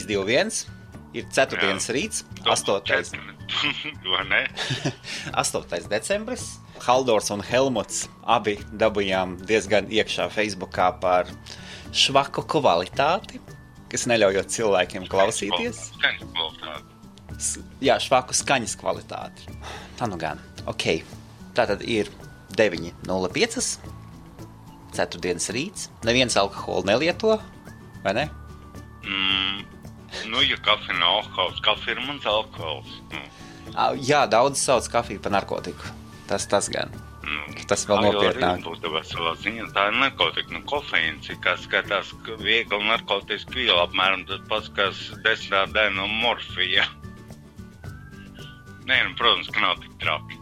2-1. Ir ceturtdienas rīts, 8. Vai ne? 8. decembris. Haldors un Helmuts abi dabujām diezgan iekšā Facebookā par švaku kvalitāti, kas neļaujot cilvēkiem klausīties. Skaņas kvalitāti. Jā, švaku skaņas kvalitāti. Tā nu gan. Ok. Tātad ir 9:05. Ceturtdienas rīts. Neviens alkoholu nelieto, vai ne? Nu, ja kafija nav alkohols, kafija ir mans alkohols. Jā, daudz sauc kafiju par narkotiku. Tas gan. Tas vēl nopietnāk. Tā ir narkotika, kofeīns, kas skatās viegli narkotiski viela, apmēram tas pats, kas 10. daļa no morfija. Nē, protams, ka nav tik traki.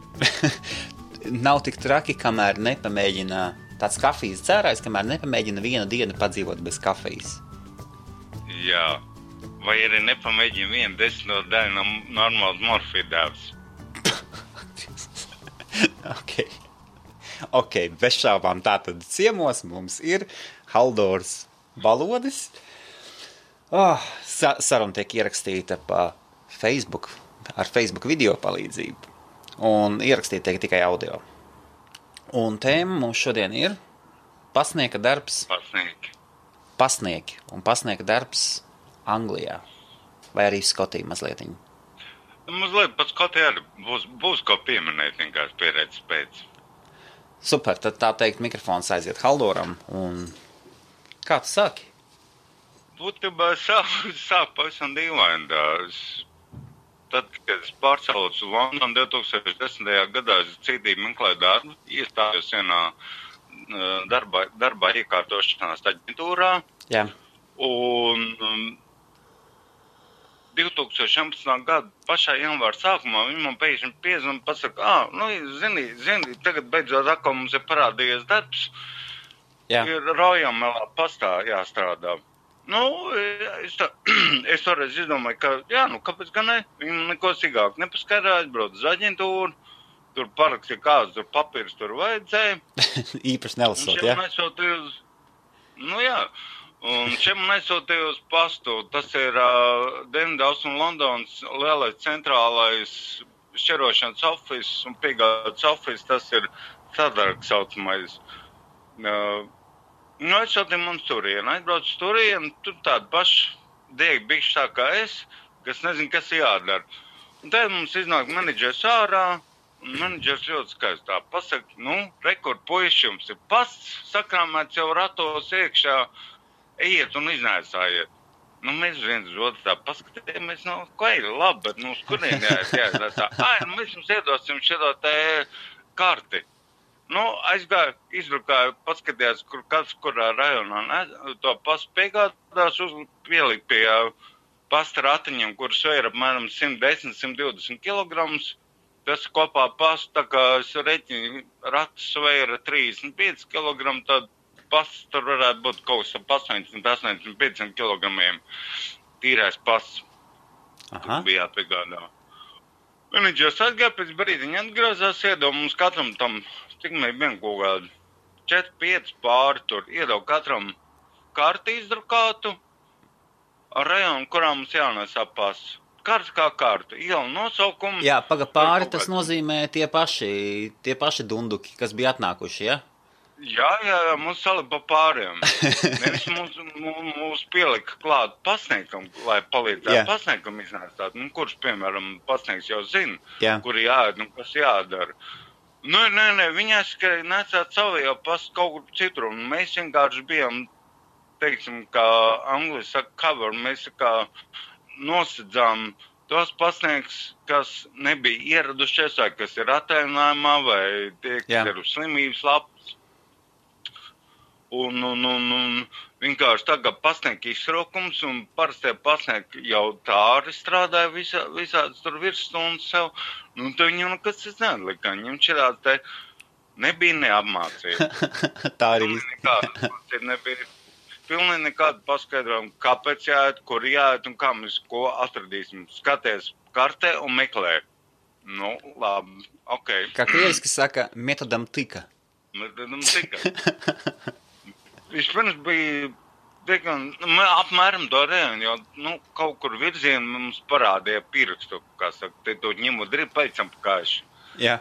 Nav tik traki, kamēr nepamēģina tāds kafijas dzērājs, kamēr nepamēģina vienu dienu padzīvot bez kafijas. Jā. Vai arī nepamēģina 1/10 daļu no normāls morfija devs. Ok, bez šaubām tātad ciemos mums ir Haldors Balodis. Saruna tiek ierakstīta pa Facebook, ar Facebook video palīdzību. Un ierakstīta tiek tikai audio. Un tēma mums šodien ir pasnieka darbs. Pasnieki. Un pasnieka darbs Anglijā. Vai arī Skotija mazlietiņa. Mazliet pat Skotija arī būs ko pieminēt vienkārši pieredzes pēc. Super, tad tā teikt mikrofons aiziet Haldoram. Un kā tu sāki? Būtībā sāk pavisam dīvaini. Tad, kad es pārcēlos uz Londonu 2010. gadā, es cītīgi meklēju darbu, iestājos vienā darbā iekārtošanās aģentūrā. Jā. Un 2011. gada pašā janvāra sākumā viņi man pēkšņi piezvan un pasaka, zini, tagad beidzot atkal mums ir parādījies darbs. Jā. Ir Rojamelā pastā jāstrādā. Es toreiz izdomāju, ka, kāpēc gan ne? Viņi neko sīkāk nepaskaidroja, aizbrauc uz aģentūru, tur parakstīja kāds, tur papīrs tur vajadzēja. Īpaši nelasot, jā? Un šeit man aizsūtīja uz pastu. Tas ir Dienvidaus un Londonas lielais centrālais šķirošanas office un piegādes office. Tas ir sadargs saucamais. Aizsūtīja mums turienu. Aizbrauc turienu, tur tādi paši diegi bišķi tā kā es, kas nezinu, kas jādara. Un tad mums iznāk menedžers ārā. Un menedžers ļoti skaistā pasaka, rekord puiši, jums ir pasts, sakrāmēts jau ratos iekšā. Ejiet un iznēsājiet. Mēs viens uz otru tā paskatījāmies, ko ir labi, bet uz kurien jāiznēsā. Mēs jums iedosim šito te karti. Aizgāju, izbrukāju, paskatījās, kurā rajonā to pastu piegādās, pielikt pie pasta ratiņiem, kuras vēra apmēram 110-120 kilograms. Tas kopā pastu, tā kā es reķinu, ratus vēra 35 kilogrami, tad pasts tur varētu būt kaut kas ap 80-85 kilogramiem tīrais pasts. Tur bija jāpiegādā. Menedžers atgāja, pēc brīdiņa atgrozās, iedod mums katram tam, cik mēs bijām kaut kādi 4-5 pāri tur, iedod katram karti izdrukātu ar rajonu, kurā mums jānesā pasts. Karts kā karta, iela nosaukumu. Jā, pāri tas nozīmē tie paši dunduki, kas bija atnākuši, ja? Jā, mums salipa pāriem. Nevis mums pielika klāt pasniekam, lai palīdzētu pasniekam iznēstāt. Kurš, piemēram, pasnieks jau zina, kur jāiet, kas jādara. Nē, viņi aizskarēja nesāt savu jau pastu kaut kur citur. Un mēs vienkārši bijām, teiksim, kā Anglijas saka, cover, mēs kā nosedzām tos pasnieks, kas nebija ieradušies, vai kas ir atēnājumā, vai tie, kas ir uz slimības lapas. Un vienkārši tagad pasnieka izsraukums, un parastie pasnieki jau tā arī strādāja visādas tur virsstundas sev. Tad viņam nekas neatlika. Viņam šķirās te nebija neapmācība. Tā arī nebija pilnīgi nekāda paskaidrojuma, kāpēc jāiet, kur jāiet un kā mēs ko atradīsim. Skaties kartē un meklē. Labi, ok. Kā krieviski saka, metodam tika. Metodam tika. Vispirms bija apmēram to rējonu, jo, kaut kur virzienu mums parādīja pierakstu, kā saka, te to ņemot drīb paicam pakājuši. Jā.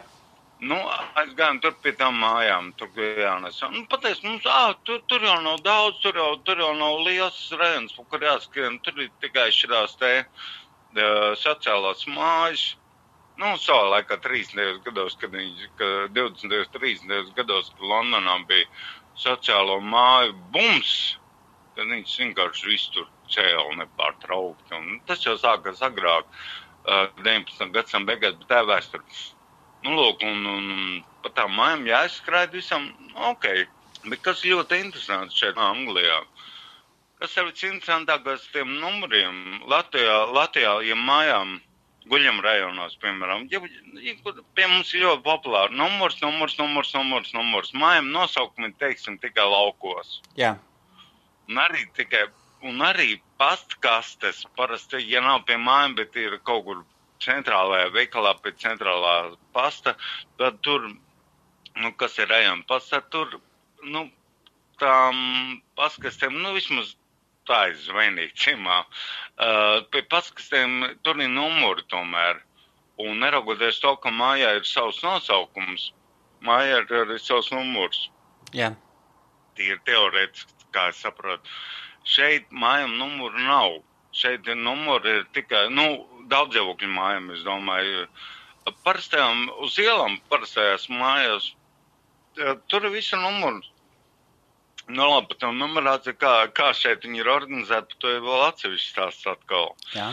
Aizgājām tur pie tām mājām, tur jānes. Pateic, mums, tur jau nav daudz, tur jau nav liels rējons, kur jāskrien, tur ir tikai šitās te sociālās mājas. Savā laikā 30. gados, kad 20. 30. gados, kad Londonā bija sociālo māju bums, tad viņš vienkārši visu tur cēla nepārtraukti. Un tas jau sākās agrāk, 19. gadsimta beigās, bet tā vēsture. Lūk, un pa tām mājām jāizskraida visam, ok. Bet kas ļoti interesants šeit Anglijā? Kas ir visinteresantākais tiem numuriem? Latvijā, ja mājām guļam rajonos, piemēram, pie mums ir ļoti populāri numurs. Mājām nosaukumi, teiksim, tikai laukos. Jā. Un arī pastkastes, parasti, ja nav pie mājām, bet ir kaut kur centrālajā veikalā pie centrālā pasta, tad tur, kas ir rajona pasta, tur, tām pastkastēm, vismaz tā ir zvainīgi ciemā. Pie pastkastēm tur ir numuri tomēr. Un neraugoties to, ka mājā ir savs nosaukums, mājā ir arī savs numurs. Jā. Tīri teorētiski, kā es saprotu. Šeit mājām numuru nav. Šeit numuri ir tikai, daudzdzīvokļu mājām, es domāju. Parastajām, uz ielām parastajās mājās, tur ir visi numuri. Labi, par to numerāciju, kā šeit viņi ir organizēti, par to ir vēl atsevišķi stāsts atkal. Jā.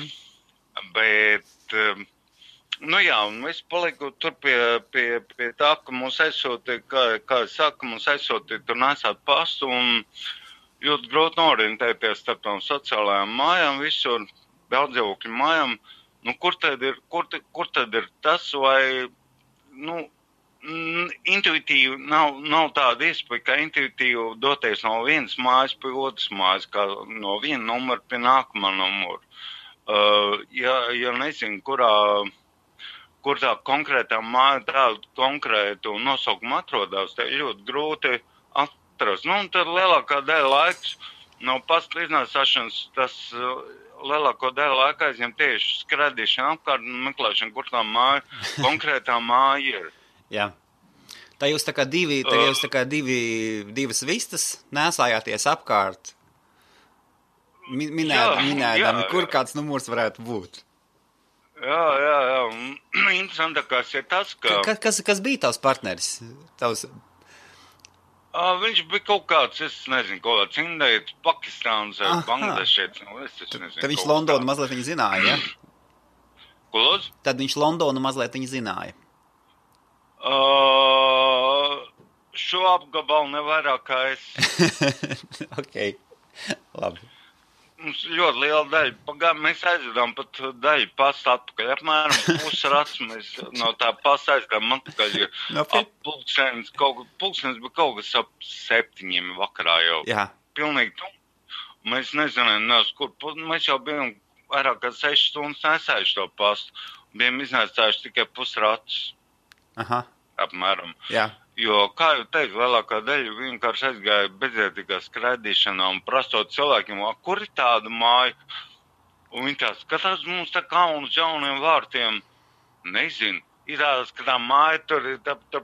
Bet, un es paliku tur pie tā, ka mums aizsūtīja, kā es saku, mums aizsūtīja tur nesāt pastu un ļoti grūti norientēties starp tām sociālajām mājām, visur daudzdzīvokļu mājām. Kur tad ir tas, vai, intuitīvi nav tāda iespēja, ka intuitīvi doties no vienas mājas pie otras mājas, kā no viena numura pie nākamā numura. Ja nezinu, kur tā konkrētā māja tādu konkrētu nosaukumu atrodās, tā ir ļoti grūti atrast. Tad lielākā daļa laiks no pasta iznāsāšanas, tas lielāko daļu laika aizņem tieši skradīšana apkārt un meklēšana, kur tā māja, konkrētā māja ir. Jā. Tā jūs tā kā divas vistas nesājāties apkārt, minēdami, kur kāds numurs varētu būt. Jā. Interesantākais ir tas, ka... Kas bija tavs partneris? Viņš bija kaut kāds, es nezinu, kaut kāds indietis, Pakistāns, Bangladešietis, es nezinu. Tad viņš Londonu mazliet viņa zināja, ja? Ko lūdzu? Tad viņš Londonu mazliet viņa zināja. Šo apgabalu nevairāk kā es. Ok, labi. Mums ļoti liela daļa. Mēs aizvedām pat daļu pasta atpakaļ. Apmēram pusrats mēs no tā pasta aizvedām atpakaļ. Pulkstenis bija kaut kas ap 7 vakarā jau. Jā. Pilnīgi tu. Mēs nezinām, kur. Mēs jau bijām vairāk kā 6 stundas nesājuši to pastu. Bijām iznēsājuši tikai pusratus. Aha. Apmēram. Jā. Jo, kā jau teicu, lielākā daļa vienkārši aizgāja bezjēdzīgā skraidīšanā un prastot cilvēkiem, kur ir tāda māja? Un viņi tā skatās mums tā kā uz jauniem vārtiem. Nezinu. Ir tādas, ka tā māja tur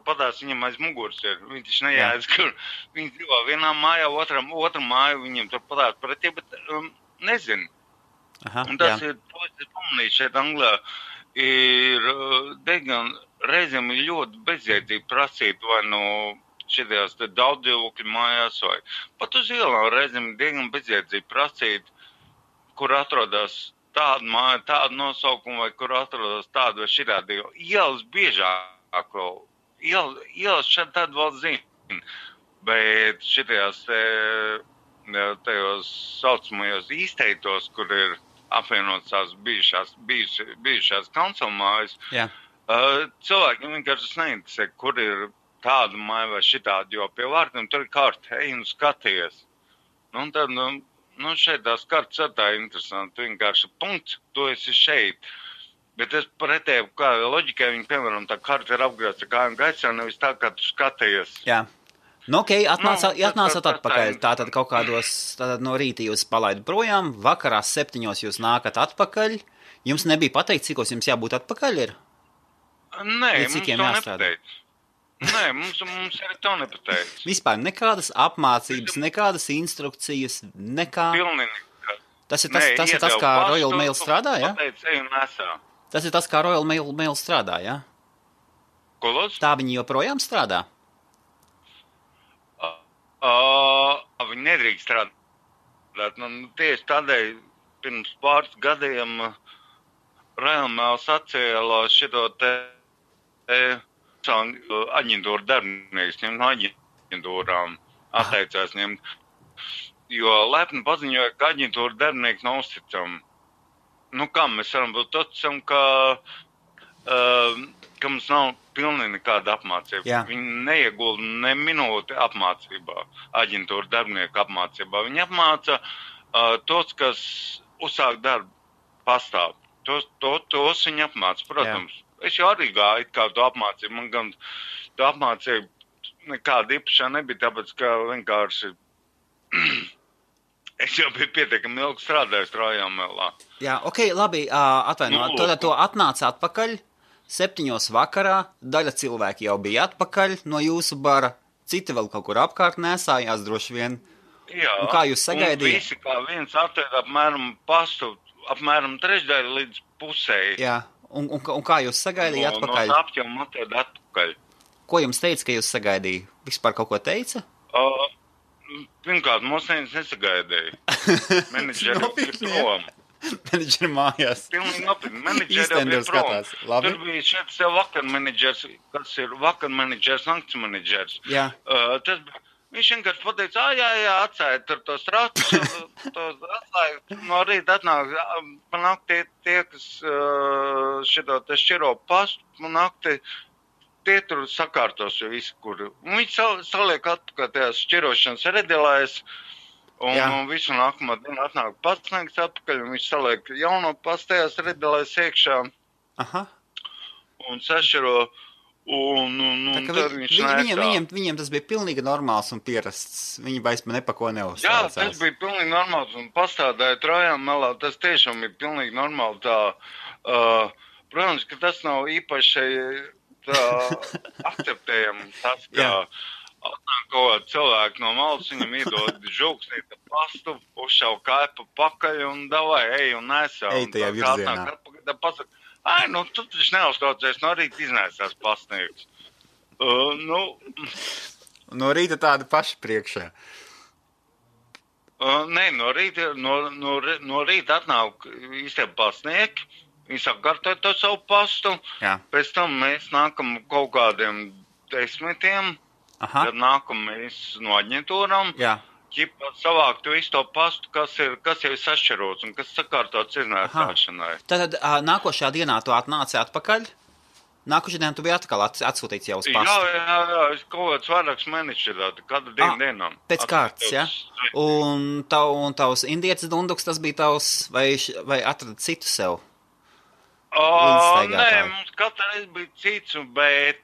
padās viņam aiz muguras ir. Viņi taču nejādas, kur viņi dzīvo vienā mājā, otra māja viņiem tur padās pretī, bet nezinu. Aha, un tas ir, to es pamanīju šeit Anglijā, ir diezgan reizēm ir ļoti bezjēdzīgi prasīt vai no šitās daudzdzīvokļu mājās vai pat uz ielām reizēm ir diezgan bezjēdzīgi prasīt, kur atrodas tāda māja, tāda nosaukuma vai kur atrodas tāda vai šitādi. Ielas biežāk vēl. Ielas šeit tāda vēl zina, bet šitajās tajos saucamajos īsteitos, kur ir apvienotas tās bijušās kancelmājas, cilvēkiem vienkārši neinteresē, kur ir tāda māja vai šitāda, jo pie vārtiem tur ir karta, ej un skaties. Un tad, šeit tās kartas ir tā interesanti, vienkārši punkts, tu esi šeit. Bet es pretēju, kā loģikai viņi, piemēram, tā karta ir apgrāsta kājām gaisā, nevis tā, kā tu skaties. Jā. Nu, ok, atnācat atpakaļ. Tātad kaut kādos, tātad no rīta jūs palaidat projām, vakarā 7 jūs nākat atpakaļ. Jums nebija pateikt, cikos jums jābūt atpakaļ ir? Nē, mums to nepateic. Nē, mums arī to nepateic. Vispār nekādas apmācības, nekādas instrukcijas, nekā... Pilnīgi. Tas ir tas, kā Royal Mail strādā, ja? Pateic, ej un nesā. Tas ir tas, kā Royal Mail strādā, ja? Ko lūdzu? Tā viņi joprojām strādā? Viņi nedrīkst strādāt. Tieši tādēļ pirms pāris gadiem Royal Mail sacēla šito te aģentūru darbinieks ņemt no aģentūrām, atteicās ņemt, jo lepni paziņoja, ka aģentūra darbinieki nav uzticami. Nu kā mēs varam būt uzticami, ka mums nav pilnīgi nekāda apmācība. Jā. Viņi neiegulda ne minūti apmācībā, aģentūra darbinieku apmācībā. Viņi apmāca tos, kas uzsāk darbu pastāv. Tos viņi apmāca, protams. Jā. Es jau arī gāju kā to apmācību. Man gan to apmācību nekāda īpašā nebija, tāpēc, ka vienkārši es jau biju pietiekami ilgi strādājis Royal Mailā. Jā, ok, labi, atvainot. Tad to atnāca atpakaļ 7 vakarā, daļa cilvēki jau bija atpakaļ no jūsu bara, citi vēl kaut kur apkārt nesājās droši vien. Jā, un kā jūs sagaidījāt? Un visi kā viens atvērt apmēram pastu, apmēram trešdaļu līdz pusēji. Jā. Un kā jūs sagaidījāt atpakaļ? No apķēmu atvērt atpakaļ. Ko jums teica, ka jūs sagaidīja? Vispār kaut ko teica? Pirmkārt, mums nesagaidīja. Menedžeri ir prom. Menedžeri mājās. Pilnīgi nopietni. Menedžeri ir prom. Tur bija šeit sev vakar menedžers, kas ir vakar menedžers, nakts menedžers. Jā. Tas bija. Viņš vienkārši pateica, jā, atsāja tur tos ratus, atsāja, no rīta atnāk, panāk tie, kas šito te šķiro pastu, panāk tie tur sakārtos jau visu, kur. Viņš saliek atpakaļ tajās šķirošanas redelēs, un visu nākamā dienu atnāk pasniegs atpakaļ, un viņš saliek jauno pastu tajās redelēs iekšā. Aha. Un sašķiro. Viņiem tas bija pilnīgi normāls un pierasts. Viņi vairs nepako neuzsācās. Jā, tas bija pilnīgi normāls un pastādāja Royal Mailā. Tas tiešām ir pilnīgi normāli tā. Protams, ka tas nav īpaši tā akceptējami. Tas, ka atnāk kaut kāds cilvēks no malas, viņam iedod žūksnīta pastu, uzšau kaipa pakaļ un davai, ej un nesā. Ej tajā virzienā. Nu, tu taču neuztraucies, no rīta iznēsās pasniegs. No rīta tāda paša priekšā. Nē, no rīta atnāk īstenībā pasniegi, viņi sakārtoja to savu pastu, pēc tam mēs nākam kaut kādiem 10, tad nākam mēs no aģentūram. Jā. Ķipa savākt visu to pastu, kas jau ir sašķirots un kas sakārtots iznēsāšanai. Tad nākošajā dienā tu atnāci atpakaļ? Nākošajā dienā tu biji atkal atsūtīts jau uz pastu? Jā, es kaut kāds vairāks mēnešus katru dienām. Pēc kārtas, ja? Un tavs indietis dunduks, tas bija tavs, vai atrada citu sev? Nē, mums katreiz bija cits, bet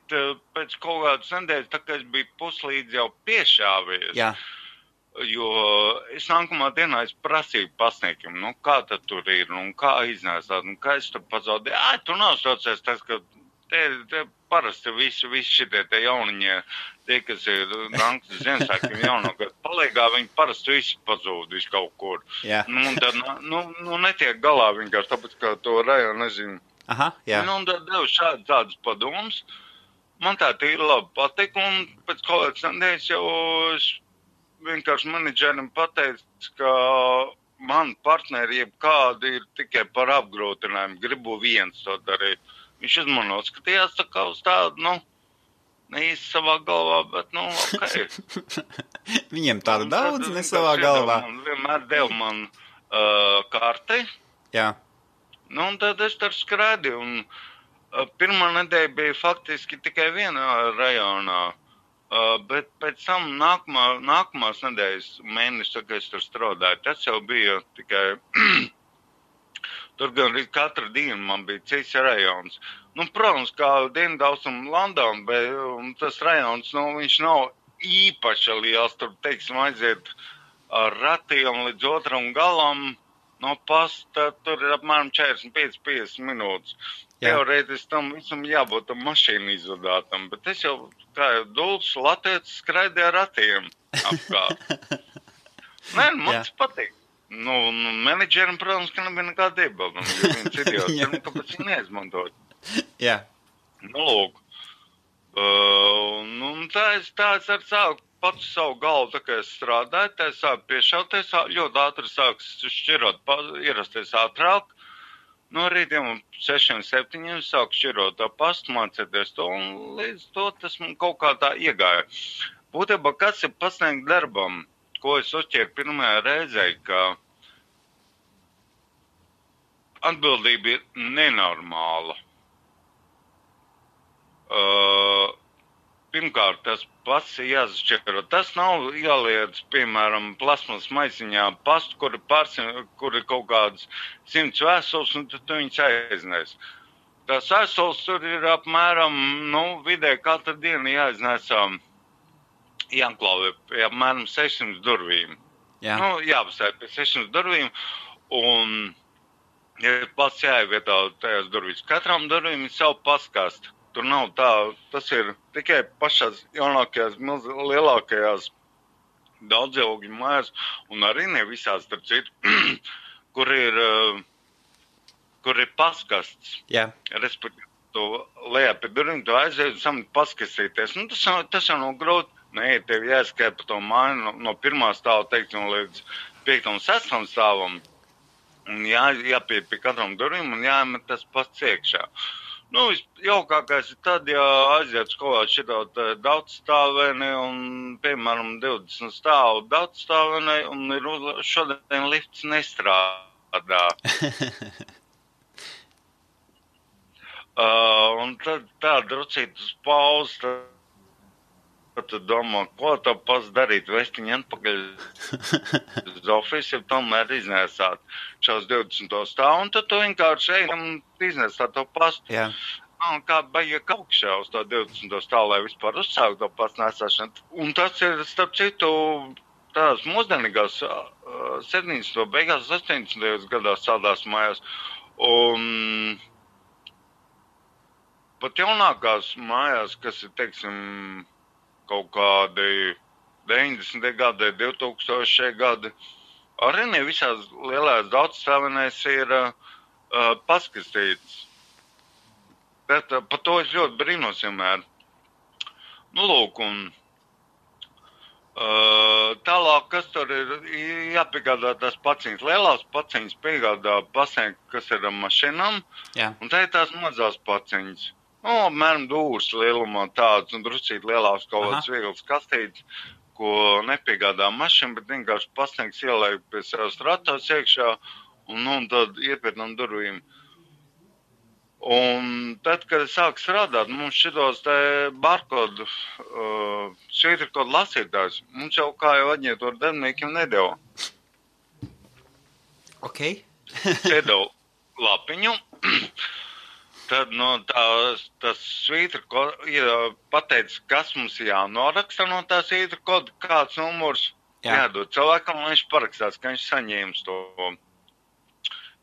pēc kaut kādas nedēļas, tā kā es biju puslīdz jau piešāvies. Jā. Jo es nākamā dienā prasīju pasniegiem, kā tad tur ir, kā iznēsāt, kā es tur pazaudēju. Tu neuztraucies tas, ka te parasti visi šitie te jauniņie, tie, kas ir Nankas Ziemassvētkiem jaunākā palīgā, viņi parasti visi pazūd visu kaut kur. Jā. Un tad, netiek galā vienkārši, tāpēc, ka to rajonu nezinu. Aha, jā. Un tad devu tādas padomus. Man tā ir labi patika, un pēc kaut kāds nedēļas jau vienkārši menedžerim pateica, ka man partneri jebkādi ir tikai par apgrūtinājumu, gribu viens to darīt. Viņš uzmanot skatījās tā kā uz tādu, ne īsti savā galvā, bet, ok. Viņiem tāda daudz, ne savā galvā. Vienmēr deva man karti. Jā. Un tad es tur skrēdīju, un pirmā nedēļa bija faktiski tikai vienā rajonā. Bet pēc tam nākamās nedēļas mēnesis, kad es tur strādāju, tas jau bija tikai, tur gan katru dienu man bija cits rajons. Protams, kā Dienvidaustrumu Londona, bet tas rajons, viņš nav īpaši liels, tur, teiksim, aiziet ar ratiem līdz otram galam no pasta, tur ir apmēram 45-50 minūtes. Jā. Teorētiski tam visam jābūt tam mašīnu izvadātam, bet es jau, kā jau dults latietis, skraidīju ar ratiem apkārt. Nē, man tas patīk. Nu, menedžerim, protams, ka nebija nekāda iebilduma, jo viens idiots, kāpēc viņi neizmantot. Jā. Nu, lūk. Tā es ar sāku pats savu galvu, tā kā es strādāju, tā es sāku piešauties, ļoti ātri sāks šķirot, ierasties ātrāk. No rītiem 6-7 sāku šķirot tā pastu, mācēties to, un līdz to tas man kaut kā tā iegāja. Būtībā, kas ir pasniegt darbam, ko es uzķēru pirmajā reizē, ka atbildība ir nenormāla. Pirmkārt, tas pats ir jāsašķiro. Tas nav jāliec, piemēram, plasmas maisiņā pastu, kur ir kaut kādas 100 vēstules, un tad tu viņus aiznēs. Tās vēstules tur ir apmēram, vidē katru dienu jāiznesā jāklāvē pie apmēram 600 durvīm. Jā. Jāpasēj pie 600 durvīm, un ja pats jāievietā tajās durvīs. Katram durvīm ir savu paskastu. Tur nav tā, tas ir tikai pašās jaunākajās, lielākajās daudzaugļu mājās, un arī ne visās, starp citu, kur ir paskasts. Jā. Respektīvi, tu lejā pie durvīm, tu aizies un samat paskastīties. Tas jau nav grūti. Nē, tev jāskai pa to māju no pirmā stāva, teiksim, līdz 5. un 6. stāvam. Un jāpie pie katram durvīm un jāmet tas pats iekšā. Jaukākais ir tad, ja aiziet kaut kādā šitā daudzstāvēni un, piemēram, 20 stāvu daudzstāvēni un šodien lifts nestrādā. Un tad tā drucīt uz pauzi, tad tu domā, ko tev pats darīt, vestiņi atpakaļ uz ofisu, ja tomēr iznēsāt šos 20 stāvu, un tad tu vienkārši ej un iznēsāt to pastu. Jā. Kā baigi kaukšā uz to 20 stāvu, lai vispār uzsākt to pastu nesāšanu. Un tas ir, starp citu, tās mūsdienīgās 70. beigās, 80. gadās tādās mājās. Un pat jaunākās mājās, kas ir, teiksim, kaut kādi 90. gadi, 2000. gadi, arī ne visās lielās daudzstāvenēs ir paskastīts. Bet par to es ļoti brīnos vienmēr. Lūk, un tālāk, kas tur ir jāpiegādā tās paciņas. Lielās paciņas piegādā pasniegt, kas ir ar mašinām, Jā. un tā ir tās mazās paciņas. Apmēram dūrs lielumā tāds un druscīt lielāks kaut kāds viegls kastīts, ko nepiegādā mašina, bet vienkārši pasniegs ielēk pie savas ratos iekšā un tad iepērnam durvīm. Un tad, kad es sāku strādāt, mums šitos te barkodu, švītrkodu lasītājs, mums jau kā jau aģentūra darbiniekiem nedeva. Ok. Iedeva lapiņu. Tad tas svītrkods pateica, kas mums jānoraksta no tā svītrkoda, kāds numurs jādod cilvēkam, un viņš parakstās, ka viņš saņēmis to.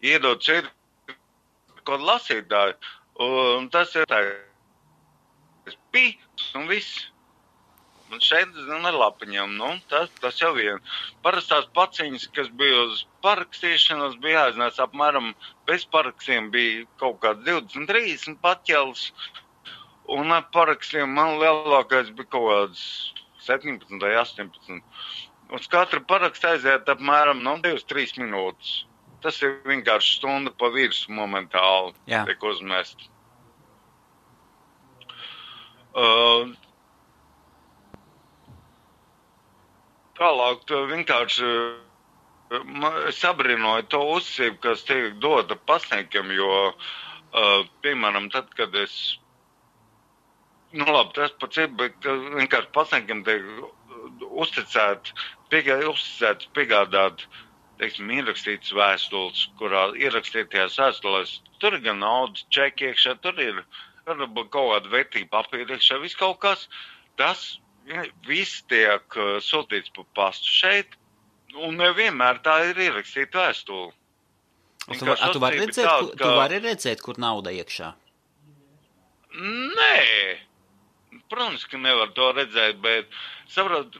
Iedod svītrkodu lasītāju, un tas ir tā, un viss. Un šeit ar lapiņām, tas jau vien. Parastās paciņas, kas bija uz parakstīšanas, bija jāiznās apmēram bez parakstiem bija kaut kāds 20-30 paķels. Un ar parakstiem man lielākais bija kaut kāds 17 vai 18. Uz katru parakstu aiziet apmēram 2-3 minūtes. Tas ir vienkārši stunda pa virsu momentāli tiek uzmest. Tālāk vienkārši sabrinoju to uzsību, kas tiek dota pasniegiem, jo, piemēram, tad, kad es, tas pats ir, bet vienkārši pasniegiem tiek uzticēts piegādāt, teiksim, ierakstītas vēstules, kurā ierakstītajās vēstulēs, tur ir gan naudas čeki iekšā, tur ir kaut kāda vērtība papīra iekšā, viss kaut kas, tas viss tiek sūtīts pa pastu šeit, un nevienmēr tā ir ierakstīta vēstule. Tu vari redzēt, kur nauda iekšā? Nē, protams, ka nevar to redzēt, bet, saprot,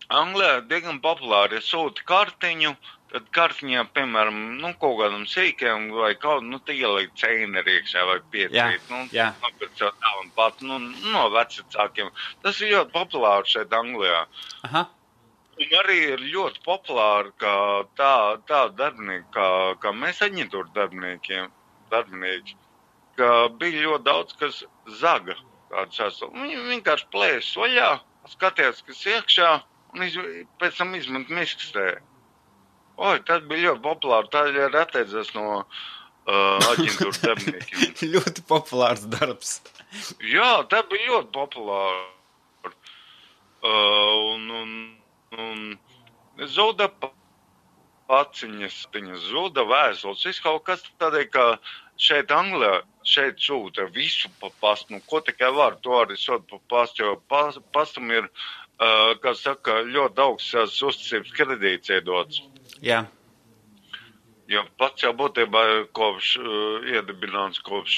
Anglijā diezgan populāri, ja sūti kartiņu, tad kartiņā, piemēram, kaut kādam sīkiem vai kaut, te ielikt ceineri iekšā vai piecīt, nopircot tā un pat, no vecākiem. Tas ir ļoti populāri šeit Anglijā. Aha. Un arī ir ļoti populāri, ka tā darbinieki, kā mēs aģentūra darbinieki, ka bija ļoti daudz, kas zaga tādu sastāvu. Viņi vienkārši plēs vaļā, skatījās, kas iekšā, un pēc tam izmet miskastē. Tas bija ļoti populāri, tā ir atteidzās no aģentūra darbiniekiem. Ļoti populārs darbs. Jā, tā bija ļoti populāri. Un zuda paciņas, zuda vēstules, viss kaut kas tādēļ, ka šeit Anglijā, šeit sūta visu pa pastu, ko tikai var, to arī sūta pa pastu, jo pastam ir, kā saka, ļoti augsts uzticības kredīts iedots. Jā. Jo pats jau būtībā ir iedibināts kopš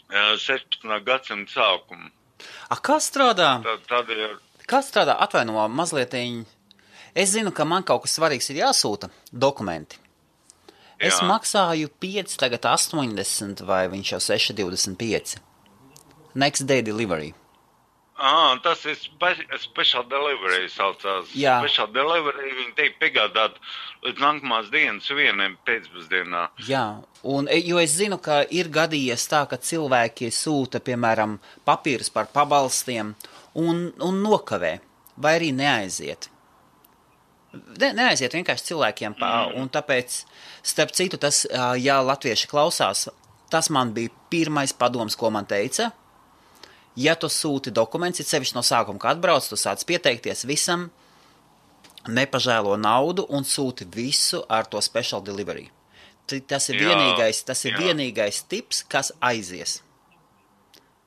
16. gadsimta sākuma. Kā strādā? Tādēļ Kā strādā? Atvaino mazlietiņ. Es zinu, ka man kaut kas svarīgs ir jāsūta dokumenti. Jā. Es maksāju 5, tagad 80 vai viņš jau 6,25. Next day delivery. Tas ir special delivery saucās. Jā. Special delivery viņi tiek piegādāt līdz nākamās dienas 1 pēcpusdienā. Jā, jo es zinu, ka ir gadījies tā, ka cilvēki sūta, piemēram, papīrus par pabalstiem un nokavē, vai arī neaiziet. Neaiziet vienkārši cilvēkiem, un tāpēc, starp citu, tas, ja latvieši klausās, tas man bija pirmais padoms, ko man teica. Ja tu sūti dokuments, ir sevišķi no sākuma, kad atbrauc, tu sāc pieteikties visam, nepažēlo naudu un sūti visu ar to special delivery. Tas ir vienīgais tips, kas aizies.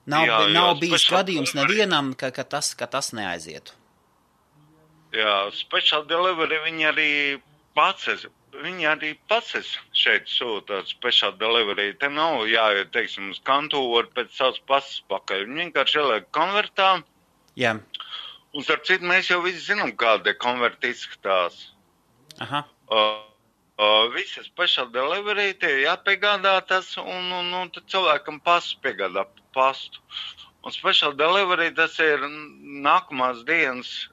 Nav bijis gadījums nevienam, ka tas neaizietu. Jā, special delivery viņi arī pats šeit sūta special delivery. Te nav jāiet, teiksim, uz kantūru pēc savas pasas pakaļ. Viņi vienkārši ieliek konvertā. Jā. Un starp citu, mēs jau visi zinām, kāda konverta izskatās. Aha. Visi special delivery tie jāpiegādā tas, un tad cilvēkam pasu piegādā pastu. Un special delivery tas ir nākamās dienas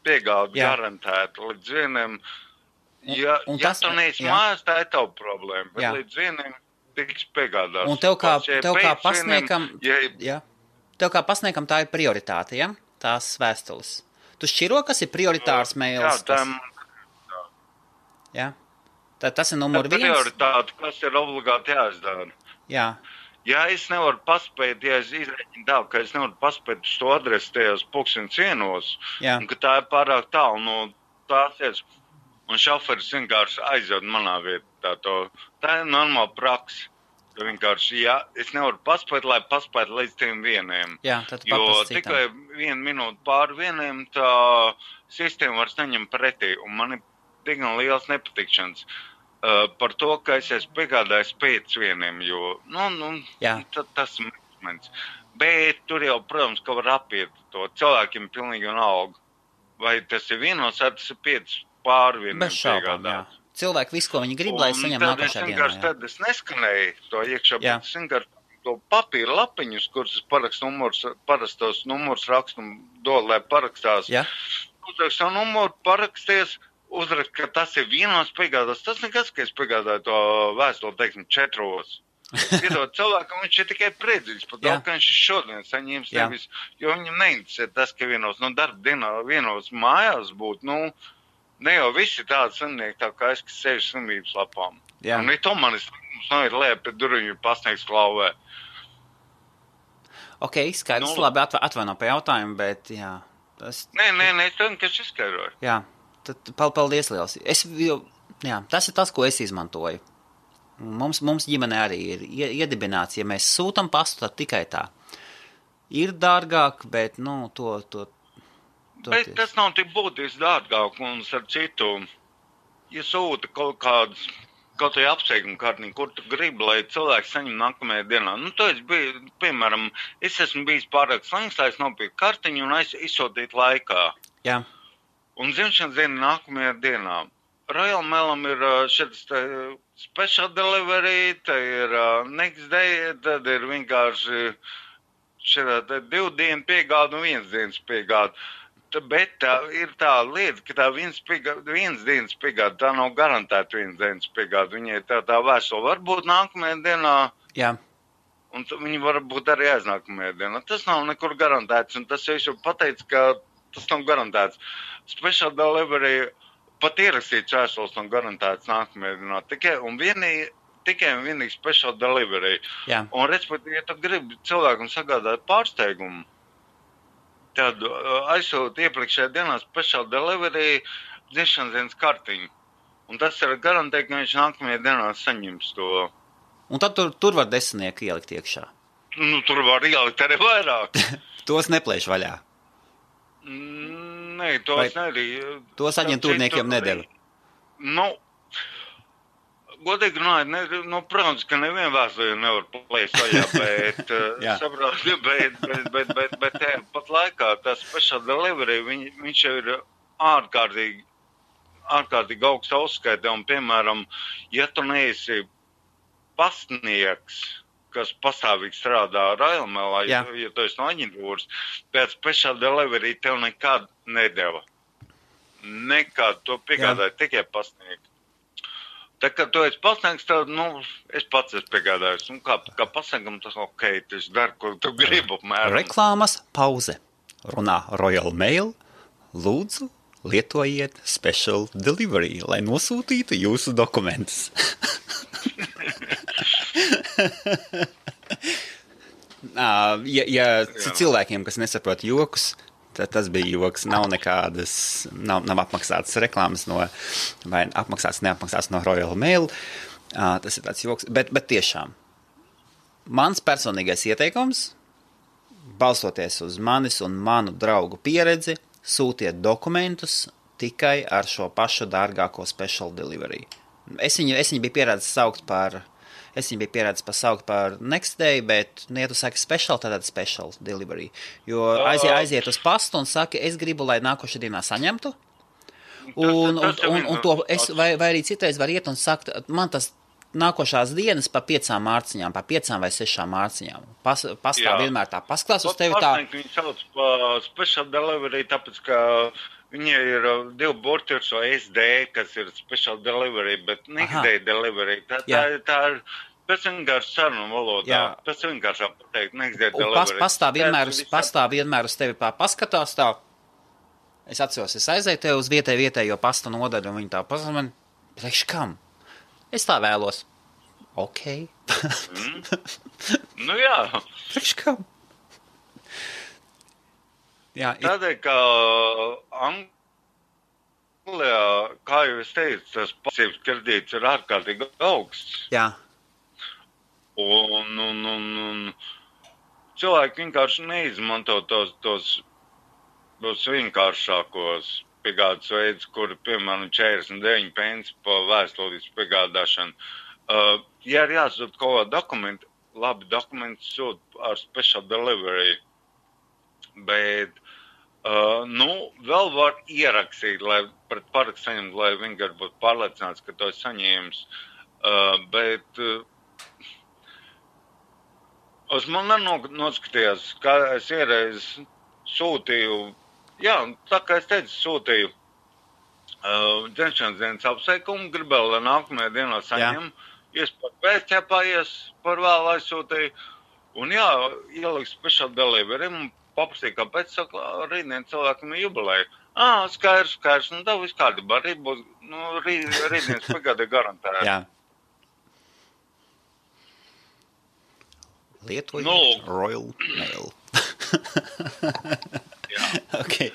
piegāda garantēta līdz 1. Ja tu neesi mājās, tā ir tava problēma, bet līdz 1 tiks piegādāts. Un tev kā pasniekam tā ir prioritāte, ja? Tās vēstules. Tu šķiro, kas ir prioritārs mails? Jā, tas ir numur 1. Prioritāte, kas ir obligāti jāizdara. Jā. Ja es nevaru paspēt, ja es izreķinu tā, ka es nevaru paspēt uz to adresi tajos 1:00, un ka tā ir pārāk tālu no tās vietas, un šoferis vienkārši aizved manā vietā to. Tā ir normāla praksa. Vienkārši, ja es nevaru paspēt, lai paspētu līdz tiem 1. Jā, tad jo tikai 1 minūte pār 1, tā sistēma vairs neņem pretī, un man ir diezgan liels nepatikšanas. Par to, ka es esmu piegādājis pēc 1, jo, tas ir moments. Bet tur jau, protams, ka var apiet to cilvēkiem pilnīgi vienalga. Vai tas ir 1, vai tas ir 5 pār 1 piegādāt. Cilvēki visu, ko viņi grib, lai saņem nākošajā dienā. Tad es neskanēju to iekšā, bet es vienkārši to papīra lapiņus, kurus es parastos numurus rakstu un dodu, lai parakstās. Jā. Uzrakst savu numuru, paraksties, uzrakst, ka tas ir 1 piegādās. Tas nekas, ka es piegādāju to vēstuli, teiksim, 4. Iedot cilvēkam, viņš ir tikai priecīgs par to, ka viņš šodien saņems nevis, jo viņam neinteresē tas, ka 1 darba dienā 1 mājās būtu, ne jau visi tādi slimnieki, tā kā es, kas sevi slimības lapām. Jā. Un to manis ir lēp pie durvju pasniegs klauvē. Ok, skaidrs, labi, atvaino pie jautājumu, bet jā. Nē, es tev vienkārši izskaidroju. Jā, tad paldies liels. Tas ir tas, ko es izmantoju. Mums ģimene arī ir iedibināts, ja mēs sūtam pastu, tad tikai tā. ir dārgāk, bet, Bet tas nav tik būtiski dārgāk, un ar citu, ja sūta kaut kādas, kaut vai apsveikuma kartiņu, kur tu gribi, lai cilvēks saņem nākamajā dienā. Tu esi bijis, piemēram, es esmu bijis pārāk slings, lai es nopirku kartiņu un izsūtītu laikā. Jā. Un dzimšanas diena nākamajā dienā. Royal Mailam ir šis special delivery, te ir next day, tad ir vienkārši šāda 2 dienu piegāda un 1 dienas piegāda. Bet tā ir tā lieta, ka tā viens dienas piegāda, tā nav garantēta 1 dienas piegāda. Viņai tā vēstule var būt nākamajā dienā. Jā. Un viņi var būt arī aiznākamajā dienā. Tas nav nekur garantēts, un tas jau pateica, ka tas nav garantēts. Special delivery pat ierakstīts vēstules nav garantēts nākamajā dienā. Tikai un vienīgi special delivery. Jā. Un, respektīvi, ja tu gribi cilvēkam sagādāt pārsteigumu, tad aizsūta iepriekšējā dienā special delivery dzimšanas dienas kartiņu. Un tas ir garantē, ka viņš nākamajā dienā saņems to. Un tad tur var 10 ielikt iekšā. Tur var ielikt arī vairāk. Tos neplēš vaļā. Nē, tos arī. Tos aģentūrniekiem nedeva. Godīgi runājot, protams, ka nevienu vēstuli nevar plēst vaļā, bet saprāt, bet pat laikā tas special delivery, viņš jau ir ārkārtīgi augsta uzskaita, un, piemēram, ja tu neesi pastnieks, kas pastāvīgi strādā Royal Mailā, ja tu esi no aģentūras, pēc special delivery tev nekad nedeva. Nekad to piegādāja tikai pastnieki. Tā kā tu esi pasniegts, tad, es pats esmu piegādājis. Un kā pasniegam, tas ok, tas dar, ko tu gribi apmēram. Reklāmas pauze. Runā Royal Mail. Lūdzu, lietojiet special delivery, lai nosūtītu jūsu dokumentus. Ja cilvēkiem, kas nesaprot jokus, tas bija joks, nav apmaksātas reklāmas vai neapmaksātas no Royal Mail. Tas ir tāds joks, bet tiešām. Mans personīgais ieteikums, balstoties uz manis un manu draugu pieredzi, sūtiet dokumentus tikai ar šo pašu dārgāko special delivery. Es viņu biju pieredzis saukt par next day, bet, ja tu saki special, tad special delivery. Jo aiziet uz pastu un saki, es gribu, lai nākošajā dienā saņemtu. Vai arī citreiz var iet un sakt, man tas nākošās dienas pa 5 mārciņām, pa 5 vai 6 mārciņām. Pastāv vienmēr tā paskatās uz tevi tā. Viņi sauc pa special delivery, tāpēc, ka viņai ir 2 burti ar šo SD, kas ir special delivery, bet next day delivery. Tā ir pēc vienkārši sarunu valodā. Pēc vienkārši pateikt next day delivery. Pastāv vienmēr uz tevi paskatās tā. Es atceros, es aizēju tev uz vietējo pasta nodaļu, un viņi tā pasaka man, priekš kam? Es tā vēlos. Ok. Jā. Priekš kam? Jā, tādēļ, ka Anglijā, kā jau es teicu, tas pasīvs kredīts ir ārkārtīgi augsts. Jā. Un cilvēki vienkārši neizmanto tos vienkāršākos piegādes veidus, kuri, piemēram, 49 pence pa vēstulīs piegādāšanu. Ja ir jāsūt kaut kādu dokumentu, labi dokumenti sūt ar special delivery, bet, vēl var ierakstīt, lai pret parakstu saņemt, lai vienkārši būtu pārliecināts, ka to saņēmis, bet uz man noskatījās, kā es iereiz sūtīju, tā kā es teicu, sūtīju dzimšanas dienas apsveikumu, gribēju, lai nākamajā dienā saņem, iespēr pēcķepājies, par vēl aizsūtīju, un ieliku special delivery, un paprasīju, kāpēc, saka, rītdien cilvēkam ir jubileja. Skaidrs, tā viss kārtībā, rītdienas pagādē garantēja. Jā. Lietojiet Royal Mail. Okay.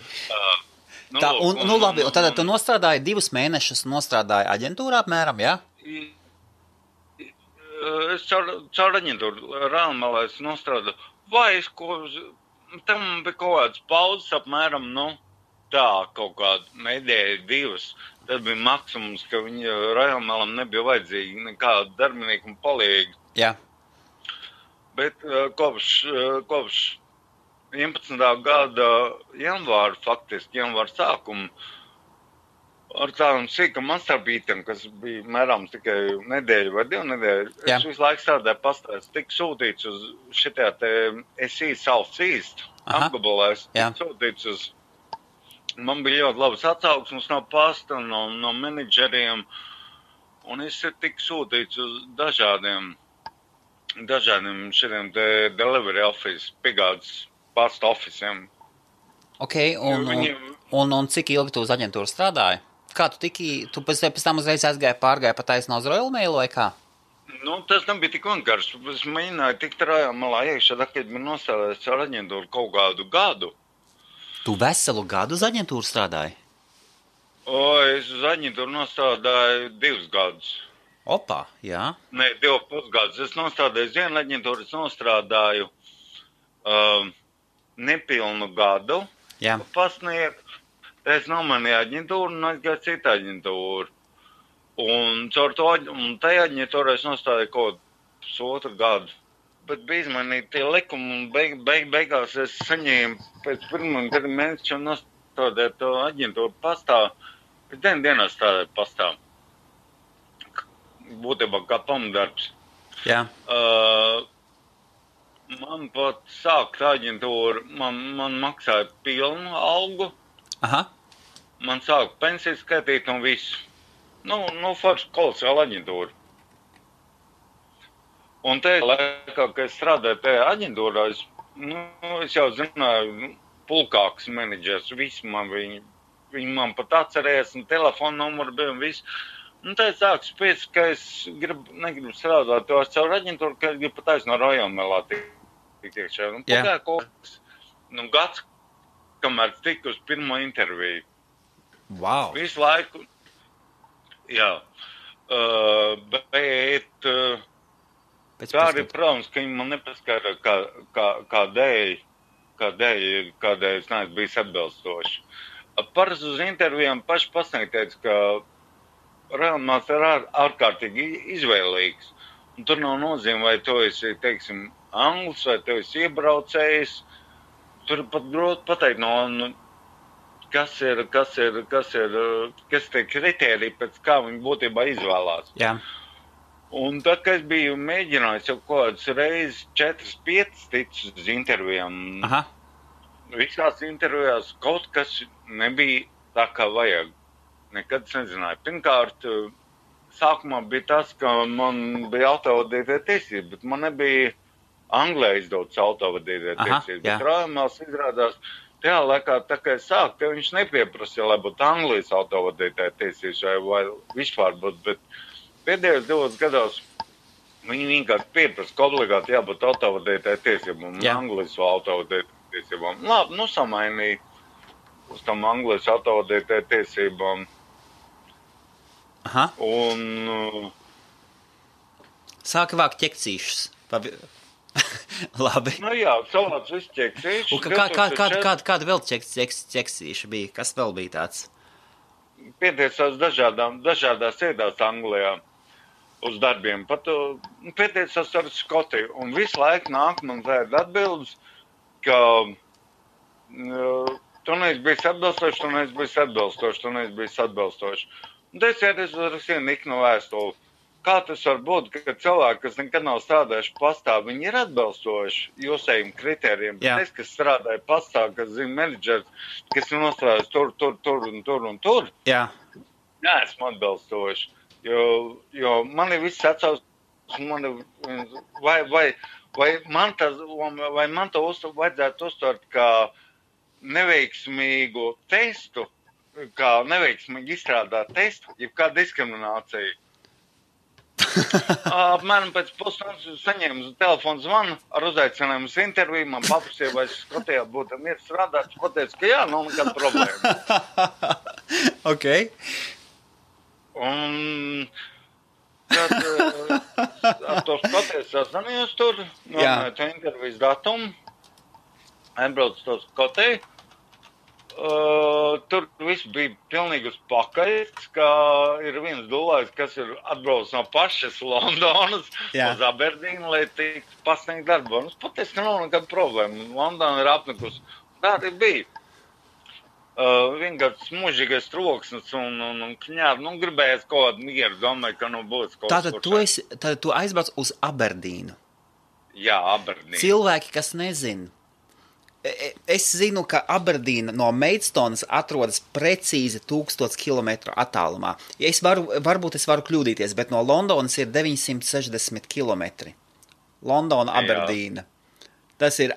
Labi, tad tu nostrādāji 2 mēnešus, aģentūrā apmēram, jā? Es caur aģentūru Royal Mailā nostrādāju. Vai es ko tam bija kaut kāds pauzes apmēram, tā kaut kāda nedēļa, 2. Tad bija maksimums, ka viņa Rajonmelam nebija vajadzīgi nekāda darbinieka un palīgi. Jā. Bet kopš 11. gada janvāra, faktiski janvāra sākuma, ar tādam sīkam astarpītam, kas bija mērāms tikai nedēļu vai 2 nedēļu, es visu laiku strādāju pastāst, tik sūtīts uz šitā te SE Southeast apgabalēs, tik sūtīts uz, man bija ļoti labas atsauksmes no pasta, no menedžeriem, un es tik sūtīts uz dažādiem šitiem te delivery office, piegādes pasta officiem. Ok, un cik ilgi tu uz aģentūru strādāji? Kā tu pēc tam uzreiz pārgāji pa taisno uz Royal Mail vai kā? Tas nebija tik vienkārši. Es mēģināju tikt Rajonmelā iekšā, kad man nostādājis ar aģentūru kaut kādu gadu. Tu veselu gadu uz aģentūru strādāji? Es uz aģentūru nostādāju 2 gadus. Opā, jā. Nē, 2,5 gadus. Es nostādāju uz vienu aģentūru, es nostrādāju nepilnu gadu. Jā. Pasniegt. Es nomainīju aģentūru un aizgāju citu aģentūru. Un caur to tajā aģentūrā es nostādīju kaut 1,5 gadu. Bet bija izmainīti tie likumi un beigās es saņēmu pēc 1. mēneša un nostādīju to aģentūru pastā. Pēc 9 dienās strādāju pastā. Būtībā kā pamatdarbs. Jā. Man pat sākt aģentūru, man maksāja pilnu algu. Aha. Man sāka pensiju skaitīt un visu. Forši kolosāla aģentūra. Un te laikā, kad es strādāju tajā aģentūrā, es jau zināju, pulkāks menedžers, visu man viņi man pat atcerējās, un telefona numuru bija un visu. Un tā sāku spiest, ka es negribu strādāt to caur aģentūru, ka es gribu pat aiz no Rajonmelā tik iekšā. Un pagāja kaut kas, gads, kamēr tiku uz pirmo interviju. Wow. Visu laiku, jā. Bet tā arī, protams, ka viņi man nepaskara, kādēļ es neesmu bijis atbilstoši. Parasti uz intervijām paši pasniegt teica, ka Rajonmels ir ārkārtīgi izvēlīgs. Un tur nav nozīme, vai tu esi, teiksim, anglis, vai tu esi iebraucējs. Tur pat grūti pateikt, kas tie kritēriji, pēc kā viņi būtībā izvēlās. Jā. Un tad, kad es biju mēģinājis jau kaut kādas reizes 4-5 ticis uz intervijām, visās intervijās kaut kas nebija tā, kā vajag. Nekad es nezināju. Pirmkārt, sākumā bija tas, ka man bija autovadītāja tiesības, bet man nebija Anglē izdotas autovadītāja tiesības. Bet Rajonmels izrādās, tajā laikā, tā kā es sāku, te viņš nepieprasīja, lai būtu Anglijas autovadītāja tiesības vai vispār būtu, bet pēdējos 2 gados viņi vienkārši pieprasa, ka obligāti jābūt autovadītāja tiesībām un Anglijas autovadītāja tiesībām. Labi, samainīja uz tam Anglijas autovadītāja tiesībām. Aha. Un sāka vākt ķekcīšus. Labi. Jā, savāc visu ķekcīšu. Kāda vēl ķekcīša bija? Kas vēl bija tāds? Pieteicās dažādās iedās Anglijā uz darbiem. Pat pieteicās ar Skotiju. Un visu laiku nāk man tāda atbildes, ka tu neesi bijis atbilstoši, tu neesi bijis atbilstoši, tu neesi bijis atbilstoši. Un es rakstīju Niknu vēstuli. Kā tas var būt, ka cilvēki, kas nekad nav strādājuši pastā, viņi ir atbilstoši jūsējiem kritērijiem, bet es, kas strādāju pastā, kas zina menedžers, kas ir nostrādājis tur, Jā. neesmu atbilstoši. Jo man ir viss atsauc, vai man to vajadzētu uztvert kā neveiksmīgu testu, kā neveiksmīgi izstrādāt testu, jeb kā diskriminācija. Apmēram pēc pusstundas saņēmu telefonu zvanu ar uzaicinājumu uz interviju. Man paprasīja, vai es Skotijā būtu mieru strādāt. Es pateicu, ka jā, nav nekāda problēma. Ok. Un tad ar to Skotiju sazvanījos tur, nomēju to intervijas datumu. aizbraucu uz to Skotiju. Tur viss bija pilnīgi uz pakaļ, ka ir viens dulājs, kas ir atbraucis no pašas Londonas uz Aberdīnu, lai tiktu pasniegt darbu. Un patiesi nav nekāda problēma. Londona ir apnikusi. Tā arī bija. Vienkārši smužīgais troksnis un kņābi. Gribējās kaut kādu mieru, domāju, ka būs kaut kas. Tātad tu aizbrauc uz Aberdīnu? Jā, Aberdīnu. Cilvēki, kas nezin. Es zinu, ka Aberdīna no Maidstonas atrodas precīzi 1000 km attālumā. Varbūt es varu kļūdīties, bet no Londonas ir 960 km. Londona, Aberdīna. Tas ir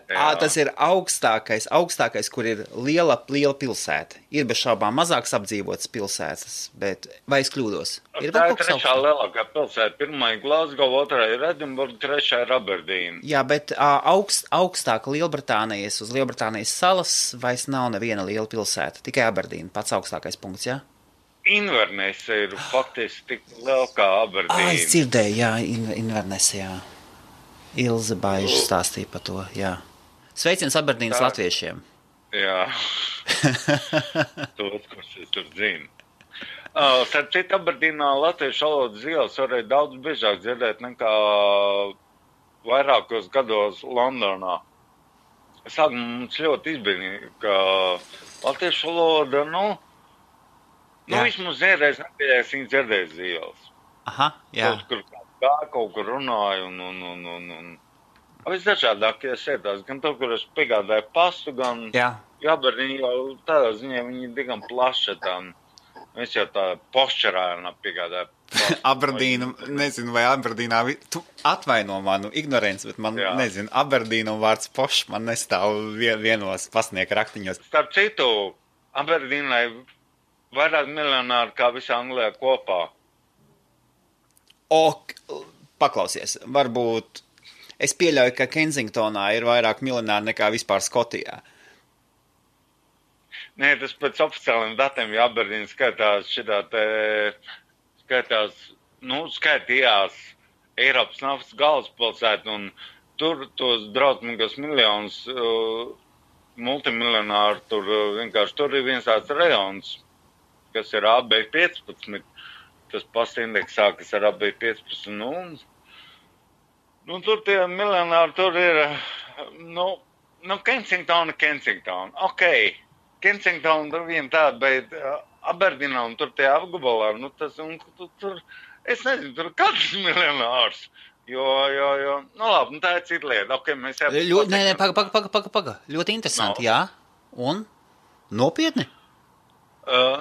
augstākais, kur ir liela pilsēta. Ir bez šaubām mazāks apdzīvotas pilsētas, bet vai es kļūdos? Tā ir trešā lielākā pilsēta. Pirmā ir Glasgow, otrā ir Edinburgh, trešā ir Aberdīna. Jā, bet augstāk Lielbritānijas uz Lielbritānijas salas vairs nav neviena liela pilsēta. Tikai Aberdīna, pats augstākais punkts, jā? Inverness ir faktiski tik liela kā Aberdīna. Es dzirdēju, jā, Inverness, jā. Ilze Baiža stāstīja par to, jā. Sveiciens Aberdīnas latviešiem. Jā. Tos, kurus es tur zinu. Starp citu, Aberdīnā latviešu valodas ielas varēja daudz biežāk dzirdēt nekā vairākos gados Londonā. Sākumā mums ļoti izbrīnīja, ka latviešu valoda, vismaz vienreiz nepieļās viņa dzirdēs ielas. Aha, jā. Kaut kur runāju un visdažādākie sēdās, gan to, kur es piegādāju pastu, gan Aberdīna jau tādā ziņā viņi diezgan plaša tam. Es jau tā pošķerājumā piegādāju pastu. Aberdīna, nezinu, vai Aberdīnā, tu atvaino manu ignorenci, bet man, nezinu, Aberdīna un vārds pošs man nestāv vienos pasnieka raktiņos. Starp citu, Aberdīnai vairāk miljonāri kā visā Anglijā kopā. Paklausies, varbūt es pieļauju, ka Kensingtonā ir vairāk miljonāri nekā vispār Skotijā. Nē, tas pēc oficiāliem datiem, ja Aberdīna skaitījās Eiropas naftas galvaspilsētu, un tur tos drausmīgos miljonus multimiljonāru, tur ir viens tāds rajons, kas ir AB15. Tas pasta indeksā, kas ar AB15. Tur tie miljonāri, tur ir, Kensingtona. Ok, Kensingtona tur viena tāda, bet Aberdīnā un tur tie apgabalā, tur, es nezinu, tur katrs miljonārs. Jo, labi, tā ir cita lieta. Ok, mēs Paga. Ļoti interesanti, jā. Un? Nopietni?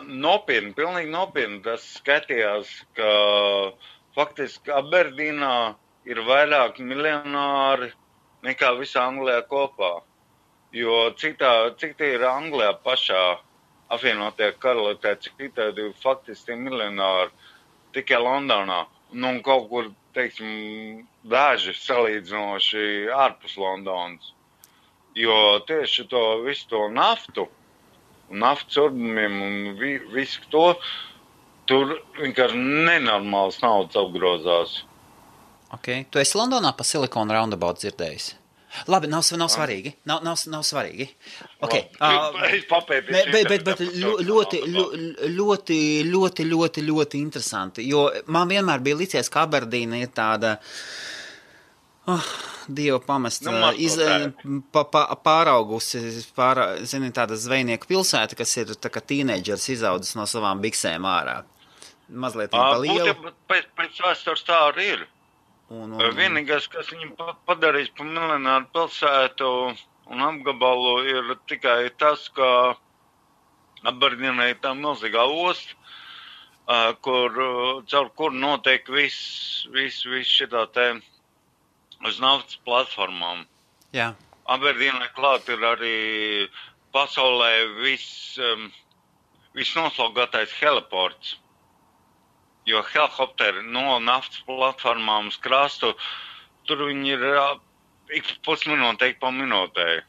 Nopietni, pilnīgi nopietni. Tas skatījās, ka faktiski Aberdīnā ir vairāk miljonāri nekā visā Anglijā kopā. Jo cik tie ir Anglijā pašā apvienotajā karalistē, cik tādi faktiski miljonāri tikai Londonā. Un kaut kur, teiksim, daži salīdzinoši ārpus Londonas. Jo tieši visu to naftu, naftas urbumiem un visu to, tur vienkārši nenormāls naudas apgrozās. Ok, tu esi Londonā pa Silicon Roundabout dzirdējis? Labi, nav svarīgi. Nav svarīgi. Ok. Es papētīšu. Bet ļoti interesanti, jo man vienmēr bija licies, ka Aberdīna ir tāda Dievu pamest, pāraugusi, tāda zvejnieku pilsēta, kas ir tā kā tīneidžers izaudzis no savām biksēm ārā. Mazliet pa lielu. Pēc vēstures tā arī ir. Vienīgais, kas viņam padarīs pa miljonāru pilsētu un apgabalu, ir tikai tas, ka Aberdīnai ir tā milzīgā osta, caur kur notiek viss šitā te uz naftas platformām. Jā. Aberdīnai klāt ir arī pasaulē visnoslogātais heliports. Jo helikopteri no naftas platformām uz krastu, tur viņi ir ik pusminūte, ik pa minūtē.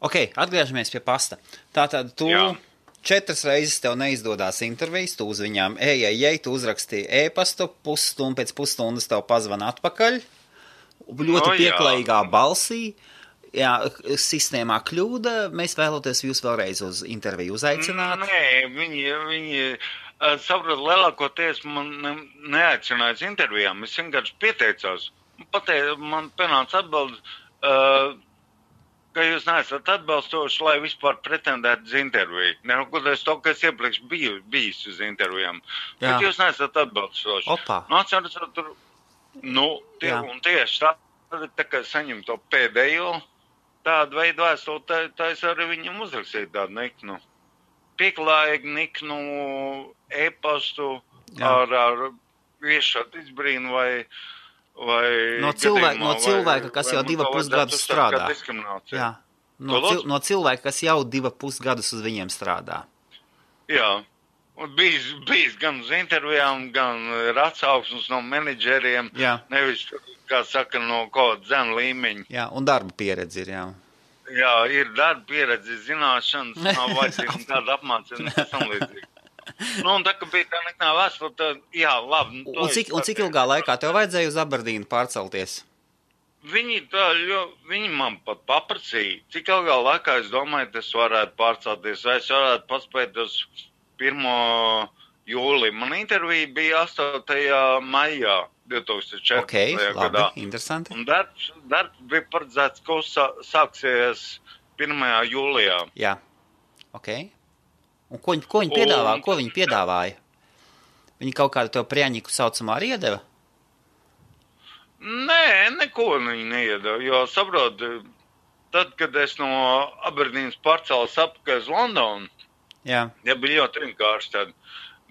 Ok, atgriežamies pie pasta. Tātad tu 4 reizes tev neizdodās intervijas, tu uz viņām tu uzrakstīji e-pastu, pēc pusstundas tev pazvana atpakaļ, ļoti pieklājīgā balsī. Jā, sistēmā kļūda, mēs vēloties jūs vēlreiz uz interviju uzaicināt. Nē, viņi saprot, lielākoties man neaicināja uz intervijām, es vienkārši pieteicos. Man pienāca atbildi, ka jūs neesat atbalstoši, lai vispār pretendētu uz interviju. Neraugoties to, ka es iepriekš bijis uz intervijām. Jā. Bet jūs neesat atbalstoši. Opa. Atceros, tur, un tieši tā kā saņem to pēdējo tādu veidu vēstuli, tā es arī viņam uzrakstīju tādu niknu. Pieklājīgu niknu e-pastu ar viešot izbrīnu vai no cilvēka, kas jau 2,5 gadus strādā. Jā. No cilvēka, kas jau 2,5 gadus uz viņiem strādā. Jā. Un bijis gan uz intervijām, gan ir atsauksmes no menedžeriem. Jā. Nevis, kā saka, no kaut zem līmeņa. Jā, un darba pieredze ir, jā. Jā, ir darba pieredze, zināšanas, nav vajadzīga tāda apmācība, tas tam līdzīgi. Un tā, ka bija tā nekā vēstule, tad, jā, labi. Un cik ilgā laikā tev vajadzēja uz Aberdīnu pārcelties? Viņi man pat paprasīja, cik ilgā laikā es domāju, tas varētu pārcelties, vai es varētu paspēt uz 1. jūliju. Man intervija bija 8. maijā 2014. Labi, interesanti. Un darbs bija paredzēts, ka sāksies 1. jūlijā. Jā, Un ko viņi piedāvāja? Viņi kaut kādu tev prieņiku saucamā arī iedeva? Nē, neko viņi neiedeva, jo saprot, tad, kad es no Aberdīnas pārcēlos apakaļ uz Londonu, jā, bija ļoti vienkārši tad,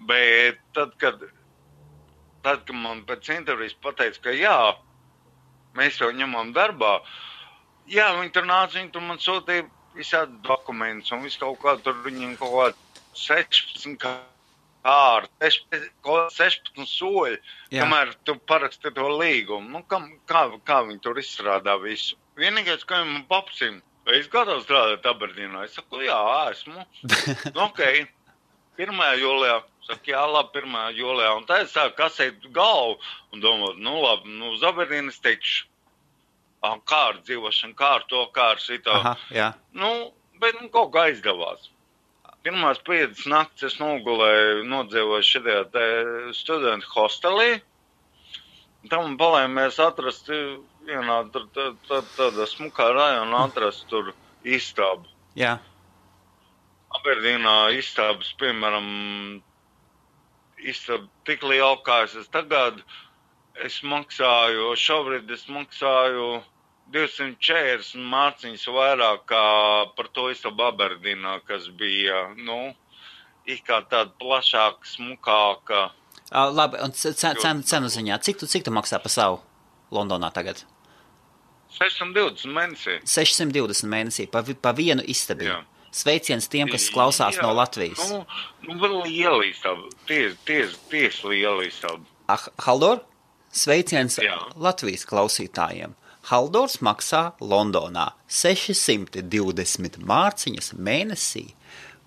bet tad, kad man pēc intervijas pateica, ka jā, mēs jau ņemam darbā, jā, viņi tur nāca, viņi tur man sūtīja visādi dokumentus un visu kaut kā tur viņiem kaut kā 16 kārti, 16 soļi, kamēr tu paraksti to līgumu. Kā viņi tur izstrādā visu? Vienīgais, ka viņi man paprasīja, vai es gatavu strādāt Aberdīnā? Es saku, jā, esmu. 1. jūlijā. Saku, jā, labi, 1. jūlijā. Un tā es sāku kasēt galvu un domāt, labi, uz Aberdīnas tikšu. Kā ar dzīvošanu, kā ar to, kā ar šito. Aha, jā. Bet kaut kā aizdevās. Pirmās 5 naktis es nodzīvoju šajā studentu hostelī. Tam palēmies atrast vienā tāda smukā rajona atrast tur istabu. Jā. Aberdīnā istabas, piemēram, istaba tik liela, kā es tagad, šobrīd es maksāju 240 mārciņas vairāk kā par to istabu Aberdīnā, kas bija, it kā tāda plašāka, smukāka. Labi, un cenu ziņā, cik tu maksā par savu Londonā tagad? 620 mēnesī. 620 mēnesī, pa vienu istabu. Jā. Sveiciens tiem, kas klausās no Latvijas. Vēl liela istaba, ties liela istaba. Haldor, sveiciens Jā. Latvijas klausītājiem. Haldors maksā Londonā 620 mārciņas mēnesī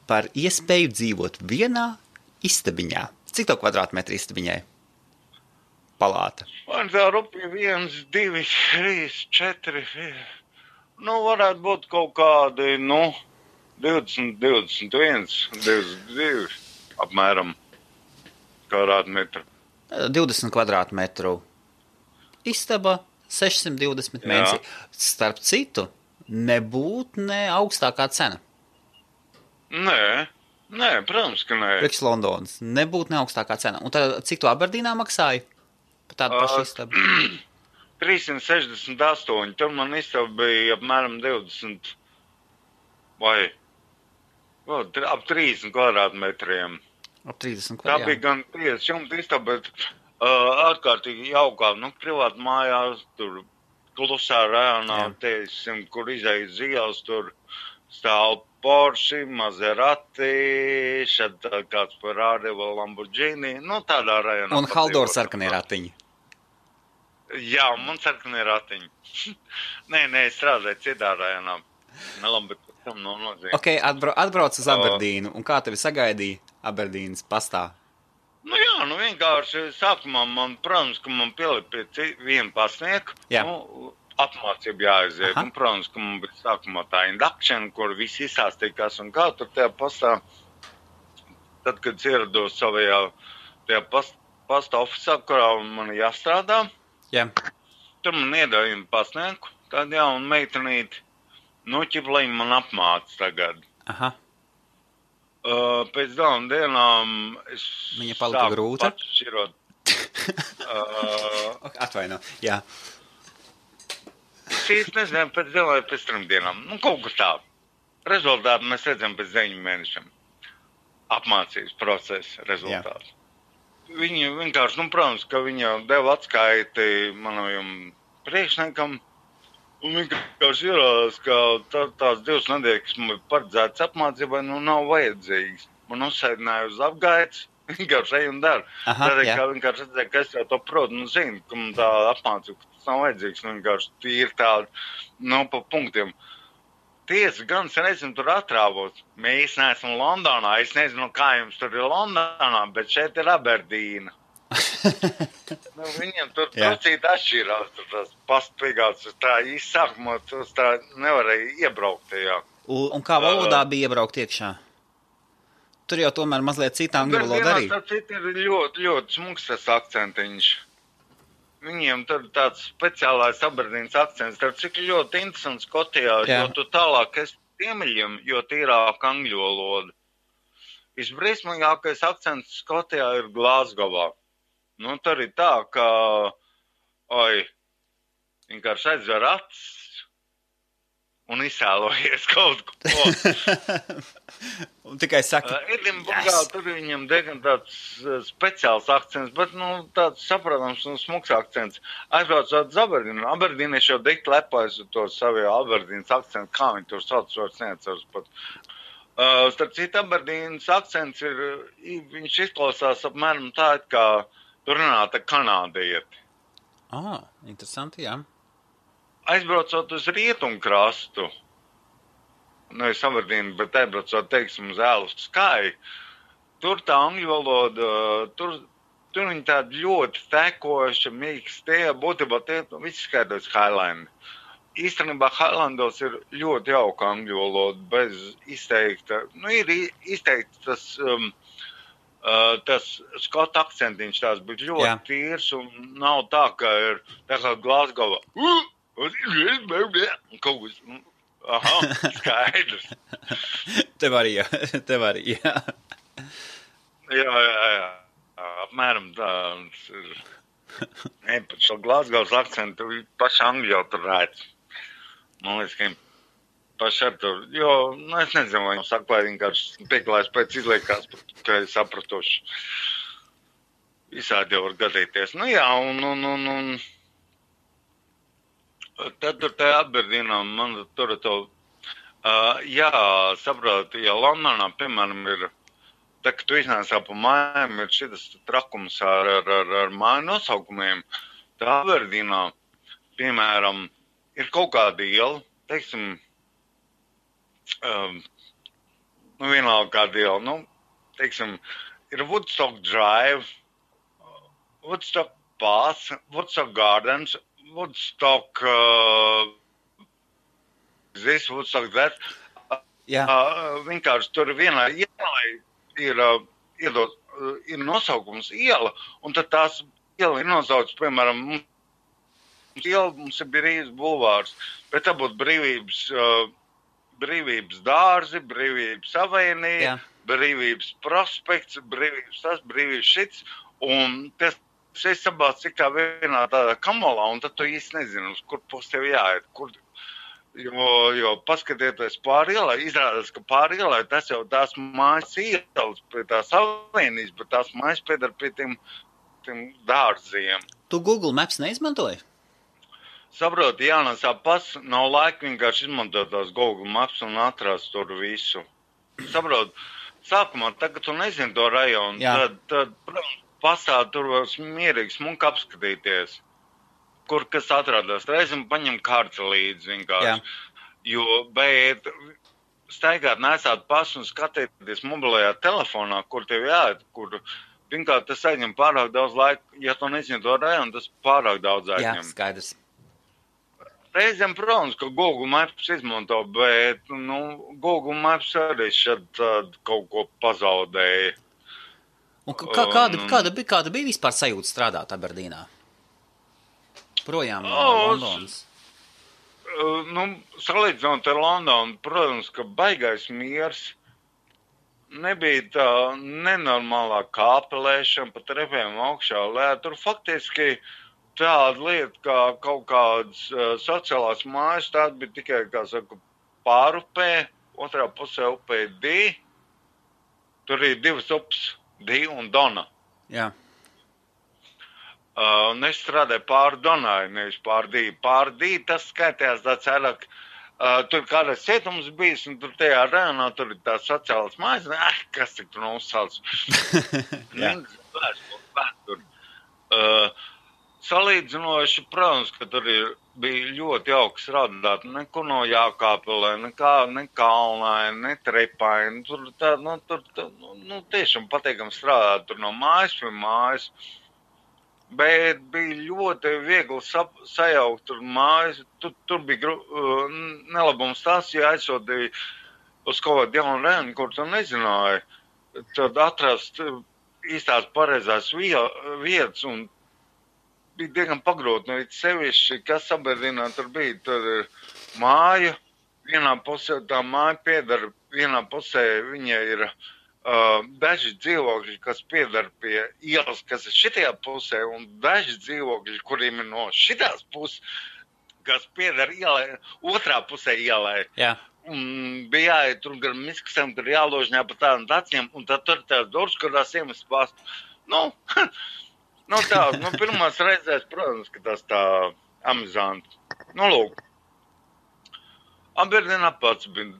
par iespēju dzīvot vienā istabiņā. Cik to kvadrātmetru istabiņai? Palāta. Man tā rupi 1, 2, 3, 4. Varētu būt kaut kādi, 20, 21, 22 apmēram kvadrātmetru. 20 kvadrātmetru istaba, 620 mēnesī. Starp citu, nebūt ne augstākā cena. Nē, protams, ka nē. Priekš Londonas. Nebūt ne augstākā cena. Un tad, cik tu Aberdīnā maksāji? Par tādu pašu istabu? 368. Tur man istaba bija apmēram 20 vai ap 30 kvadrātmetriem. Ap 30 Tā kvadrātmetriem. bija gan 5 jumta istaba, bet ārkārtīgi jaukā, privāti mājās, tur klusā rajonā, teiksim, kur izējas zīles, tur stāv Porsche, Maserati, šad kāds Ferrari vai Lamborghini, tādā rajonā. Un Haldors sarkanie ratiņi. Jā, man sarkanie ratiņi. Nē, es strādāju citā rajonā. Labi, bet tam nav nozīme. Ok, atbrauc uz Aberdīnu, un kā tevi sagaidīja Aberdīnas pastā? Vienkārši sākumā protams, ka man pielika pie vienu pasnieku. Jā. apmācība jāaiziet. Un, protams, ka man bija sākumā tā induction, kur visi izsāstīkās un kā tur tajā pastā, tad, kad ierados savajā tajā pasta ofisā, kurā man jāstrādā, tur man iedāja pasnieku, tādu jaunu meitenīti, ķiplīņu man apmāca tagad. Aha. Pēc dažām dienām es viņa palika grūta? Pats šķirot. Atvaino, jā. Es īsti nezinu, pēc 2 vai pēc 3 dienām. Kaut kas tā. Rezultātu mēs redzam pēc 9 mēnešiem. Apmācības procesa rezultātu. Viņa vienkārši, protams, ka viņa deva atskaiti manam priekšniekam. Un vienkārši ierādās, ka tās 2 nedēļas, kas man bija paredzētas apmācībai, nav vajadzīgas. Man uzsēdināja uz apgaitas, vienkārši ej un dara. Tādēļ, kā vienkārši redzēja, ka es jau to protu, zinu, ka man tā apmācība, ka tas nav vajadzīgs, vienkārši tīri tādi, pa punktiem. Tiesa, gan sen esmu tur atrāvos. Mēs neesam Londonā, es nezinu, kā jums tur ir Londonā, bet šeit ir Aberdīna. Viņiem tur trusīt atšķirās, tur tās pastpīgāts, tā īsākumā, tas tā nevarēja iebraukt tajā. Un kā valodā bija iebraukt iekšā? Tur jau tomēr mazliet citā angļu valoda arī. Tā cita ir ļoti, ļoti smuks tas akcentiņš. Viņiem tur tāds speciālais Aberdīnas akcents, tur cik ļoti interesants Skotijā, jo tu tālāk esi ziemeļiem, jo tīrāk angļu valoda. Visbriesmīgākais akcents Skotijā ir Glasgowā. Tur ir tā, ka, vienkārši aizver acis un izsēlojies kaut ko. Un tikai saka, Edinburgā tur viņam diezgan tāds speciāls akcents, bet, tāds saprotams un smuks akcents. Aizbraucot uz Aberdīnu. Aberdīnieši jau dikti lepojas ar to savu Aberdīnas akcentu, kā viņi tur sauc, vairs neatceros pat. Starp citu, Aberdīnas akcents ir, viņš izklausās apmēram tā, kā tur runāta kanādieti. Interesanti, jā. Aizbraucot uz rietumkrastu, nevis Aberdīnu, bet aizbraucot, teiksim, uz Ēlu Skai, tur tā angļu valoda, tur viņi tādi ļoti tekoši, mīkstie, būtībā tie visi skaidrs Highlandi. Īstenībā Highlandos ir ļoti jauka angļu valoda, bez izteikta, ir izteikts tas skota akcentiņš tās, bet ļoti tīrs un nav tā, ka ir tā kā Glasgowa. Kaut kas, skaidrs. Tev arī, jā. Jā. Apmēram tāds ir. Pat šo Glasgows akcentu paši angļu jau tur rēc. Man liekas, ka paši ar tur, jo, es nezinu, vai viņam saka, vai vienkārši pieklājas pēc izliekās, ka ir sapratoši. Visādi jau var gadīties. Un tad tur tajā Aberdīnā, man tur to, saprot, ja Londonā, piemēram, ir, tā, ka tu iznācā pa mājām, ir šitas trakums ar māju nosaukumiem, tā Aberdīnā, piemēram, ir kaut kāda iela, teiksim, vienalga kāda iela, teiksim, ir Woodstock Drive, Woodstock Pass, Woodstock Gardens, Woodstock this, Woodstock that. Vienkārši tur vienā ielai ir nosaukums iela, un tad tās iela ir nosaucts, piemēram, mums ir Brīvības bulvārs, bet tā būtu Brīvības dārzi, Brīvības avēnija, Brīvības prospekts, Brīvības šits, un tas es sabāc cik tā vienā tādā kamolā, un tad tu īsti nezinu, uz kur pus tev jāiet, jo paskatieties pāri ielai, izrādās, ka pāri ielai tas jau tās mājas ielas pie tās avēnijas, bet tās mājas piedar pie tiem dārziem. Tu Google Maps neizmantoji? Saproti, jānesā nav laika vienkārši izmantot tās Google Maps un atrast tur visu. Saproti, sākumā, tagad tu nezini to rajonu, tad pasā tur var mierīgi smuki apskatīties, kur kas atrādās. Reizim paņem karti līdzi vienkārši, bet staigāt nesāt pasu un skatīties mobilajā telefonā, kur tev jāiet, kur vienkārši tas aizņem pārāk daudz laika, ja tu nezini to rajonu, tas pārāk daudz aizņem. Jā, skaidrs. Reizēm, protams, ka Google Maps izmanto, bet, Google Maps arī šad kaut ko pazaudēja. Un kāda bija vispār sajūta strādāt Aberdīnā? Projām no Londonas. Salīdzinot ar Londonu, protams, ka baigais miers. Nebija tā nenormālā kāpelēšana pa trepēm augšā, tur faktiski tāda lieta, kā kaut kādas sociālās mājas, tāda bija tikai, kā saka, pārupē, otrā pusē upē Dī. Tur ir divas upes, Dī un Dona. Jā. Un es strādāju pāri Donai, nevis pāri Dī. Pāri Dī tas skaitījās tāds vairāk. Tur kādreiz cietums bijis, un tur tajā rajonā tur ir tās sociālas mājas, kas tik tur uzsauc. Salīdzinoši, protams, ka tur bija ļoti jauki strādāt, neko no jākāpelē, ne kalnai, ne trepai, tur tiešām patīkam strādāt tur no mājas pie mājas. Bet bija ļoti viegli sajaukt tur mājas. Tur bija nelabums tas, ja aizsūtīja uz kaut kādu jaunu rēnu, kur tu nezināji. Tad atrast īstās pareizās vietas un bija diezgan pagrūti. Sevišķi, kas Aberdīnā tur bija, tur ir māja. Vienā pusē tā māja piedara, vienā pusē viņa ir daži dzīvokļi, kas piedar pie ielas, kas ir šitajā pusē, un daži dzīvokļi, kuriem ir no šitās puses, kas piedar ielai, otrā pusē ielai. Jā. Bija jāiet tur gar miskasēm, tur jāložņā pa tādām taciem, un tad tur tās durvis, kurās iemest pastu. Pirmās reizēs, protams, ka tas tā amizanti. Lūk. Aberdīnā pats bija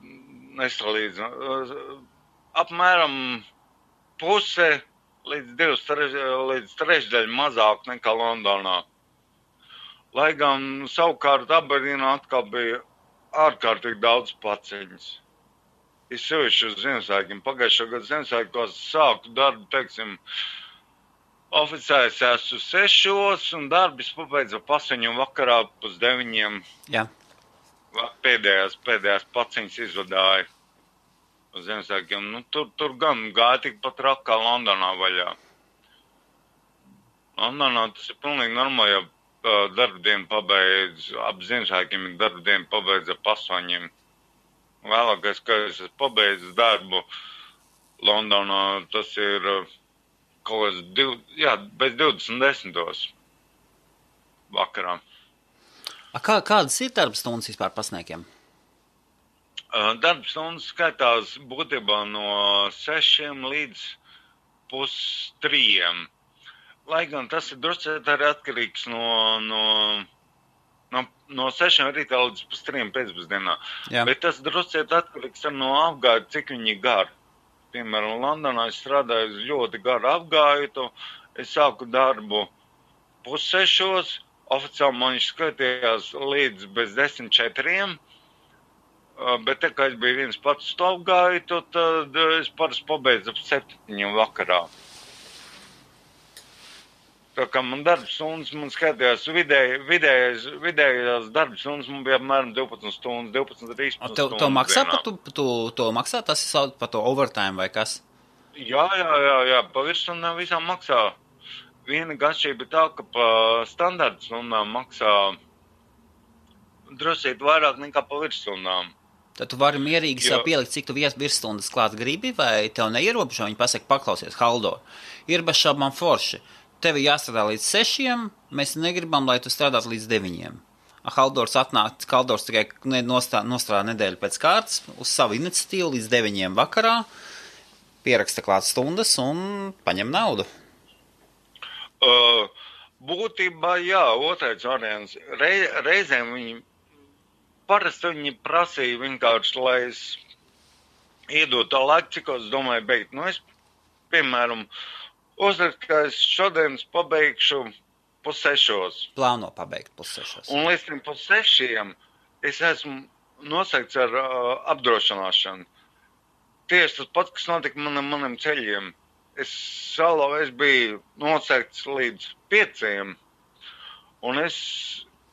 nesalīdzināms. Apmēram puse līdz trešdaļa mazāk nekā Londonā. Lai gan savukārt Aberdīnā atkal bija ārkārtīgi daudz paciņas. Es sevišķi uz Ziemassvētkiem. Pagājušā gada Ziemassvētkos sāku darbu, teiksim, oficiāls esmu 6 un darbis pabeidza 8 vakarā pus 9. Jā. Pēdējās paciņas izvadāja. Uz Ziemassvētkiem. Tur gan gāja tikpat rāk kā Londonā vaļā. Londonā tas ir pilnīgi normāli, ja darbdienu pabeidz, ap Ziemassvētkiem ir darbdienu pabeidz ap 8. Vēlākais, ka es pabeidzu darbu Londonā, tas ir kaut kāds bez 20:10 vakarā. Kādas ir darbstundas vispār pasniekiem? Darbstundas skaitās būtībā no 6 līdz 2:30. Lai gan tas ir druscēt arī atkarīgs no 6 rītā līdz 2:30 pēcpusdienā. Jā. Bet tas druscēt atkarīgs no apgāja, cik viņi gar. Piemēram, Londonā es strādāju uz ļoti garu apgāju, es sāku darbu 5:30, oficiāli man viņš skaitījās līdz bez 10:04. Bet tā kā es biju viens pats to apgāju, tad es parasti pabeidzu ap 7 vakarā. Tā kā man darbstundas, man skatījās vidējās darbstundas, man bija apmēram 12 stundas, 12-13 stundas. To maksā to maksā, tas ir sauc par to overtime vai kas? Jā, pa virsstundām visām maksā. Viena atšķirība ir tā, ka pa standarta stundām maksā drusīt vairāk nekā pa virsstundām. Tad tu vari mierīgi sev pielikt, cik tu virsstundas klāt gribi, vai tev neierobežo, viņi pasaka, paklausies, Haldo, ir bez šaubām forši. Tev jāstrādā līdz 6, mēs negribam, lai tu strādātu līdz 9. Haldors tikai nostrādā nedēļu pēc kārtas uz savu iniciatīvu līdz 9 vakarā, pieraksta klāt stundas un paņem naudu. Būtībā, jā, otrais variants. Reizēm parasti viņi prasīja vienkārši, lai es iedotu tā laiku, cik es domāju beigt. Es, piemēram, uzrakstu, ka es šodien pabeigšu 5:30. Plāno pabeigt 5:30. Un līdz 5:30 es esmu nosaikts ar apdrošināšanu. Tieši tas pats, kas notika maniem ceļiem. Es biju nosaikts līdz 5, un es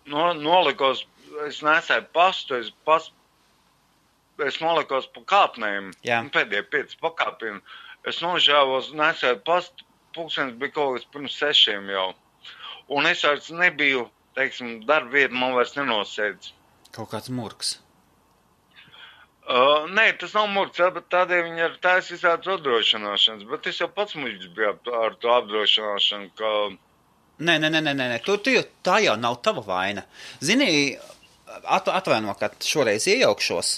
nolikos es nesēju pastu, es nolikos pa kāpnēm, pēdējie 5 pakāpieni. Es nožēvos, nesēju pastu, pulkstenis bija kaut kas pirms 6 jau. Un es vairs nebiju, teiksim, darba vieta man vairs nenosēdz. Kaut kāds murgs. Nē, tas nav murgs, bet tādēļ viņi ir tās visādas apdrošināšanas. Bet es jau pats muļķis biju ar to apdrošināšanu, ka... Nē. Tā jau nav tava vaina. Zini, atvaino, ka šoreiz iejaukšos.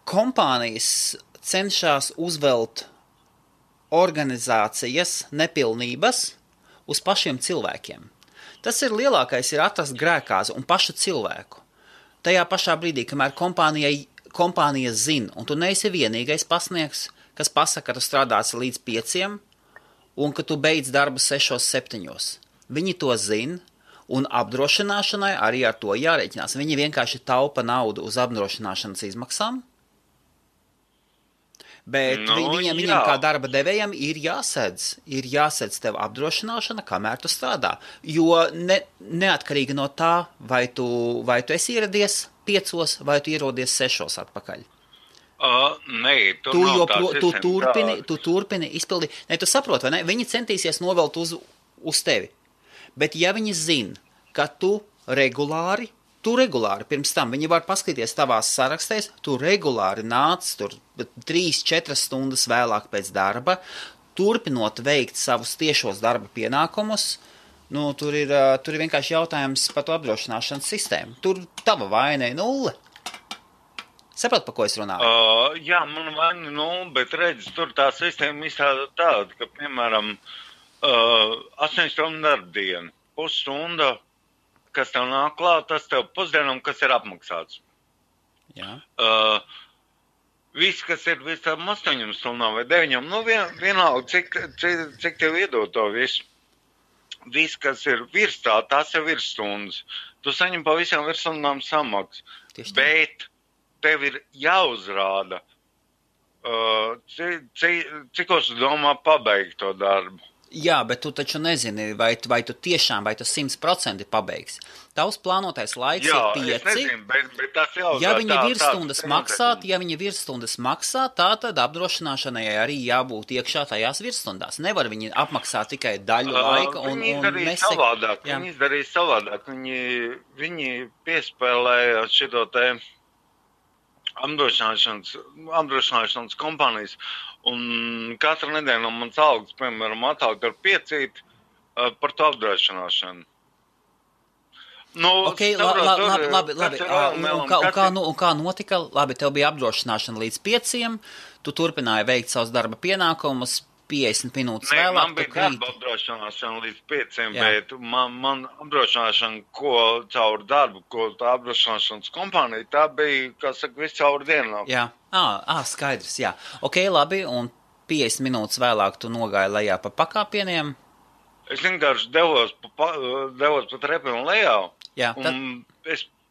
Kompānijas cenšas uzvelt organizācijas nepilnības uz pašiem cilvēkiem. Tas ir lielākais, ir atrast grēkāzi un pašu cilvēku. Tajā pašā brīdī, kamēr kompānija zina, un tu neesi vienīgais pasniegs, kas pasaka, ka tu strādāsi līdz 5 un ka tu beidz darbu 6-7. Viņi to zina, un apdrošināšanai arī ar to jārēķinās. Viņi vienkārši taupa naudu uz apdrošināšanas izmaksām, bet viņam kā darba devējam ir jāsedz tev apdrošināšana, kamēr tu strādā. Jo neatkarīgi no tā, vai tu esi ieradies 5 vai tu ierodies 6 atpakaļ. Nē, tu turpini izpildīt. Ne, tu saproti, vai ne? Viņi centīsies novelt uz tevi. Bet ja viņi zina, ka tu regulāri, pirms tam viņi var paskatīties tavās sarakstēs, tu regulāri nāc tur 3-4 stundas vēlāk pēc darba, turpinot veikt savus tiešos darba pienākumus, tur ir vienkārši jautājums par to apdrošināšanas sistēmu. Tur tava vaina ir 0. Saprot, pa ko es runāju? Jā, man vaina 0, bet redz, tur tā sistēma izstāda tāda, ka, piemēram, 8 stundu darba diena, pusstunda, kas tev nāk klāt, tas tev pusdienam, kas ir apmaksāts. Jā. Viss, kas ir viss tam 8 stundām vai 9, vienalga, cik tev iedod to visu. Viss, kas ir virs tā, tas jau ir stundas. Tu saņem pa visām virsstundām samaksu. Bet tev ir jāuzrāda, cikos tu domā pabeigt to darbu. Jā, bet tu taču nezini, vai tu tiešām, vai tu 100% pabeigsi. Tavs plānotais laiks ir 5. Jā, es nezinu, bet tas jau... Ja viņi virsstundas maksā, tā tad apdrošināšanai arī jābūt iekšā tajās virsstundās. Nevar viņi apmaksāt tikai daļu laika un savādāk. Viņi izdarīja savādāk. Viņi piespēlēja šito te apdrošināšanas kompānijas. Un katru nedēļu no mans algas, piemēram, atāk ar 5 par to apdrošināšanu. Ok, labi. Un kā notika? Labi, tev bija apdrošināšana līdz 5, tu turpināji veikt savus darba pienākumus, 50 minūtes vēlāk. Man bija darba apdrošināšana līdz 5, bet man apdrošināšana, ko caur darbu, ko tā apdrošināšanas kompānija, tā bija, kā saka, viss caur dienu. Jā. Skaidrs, jā. Ok, labi, un 50 minūtes vēlāk tu nogāji lejā pa pakāpieniem? Es vienkārši devos pa trepiem lejā. Jā,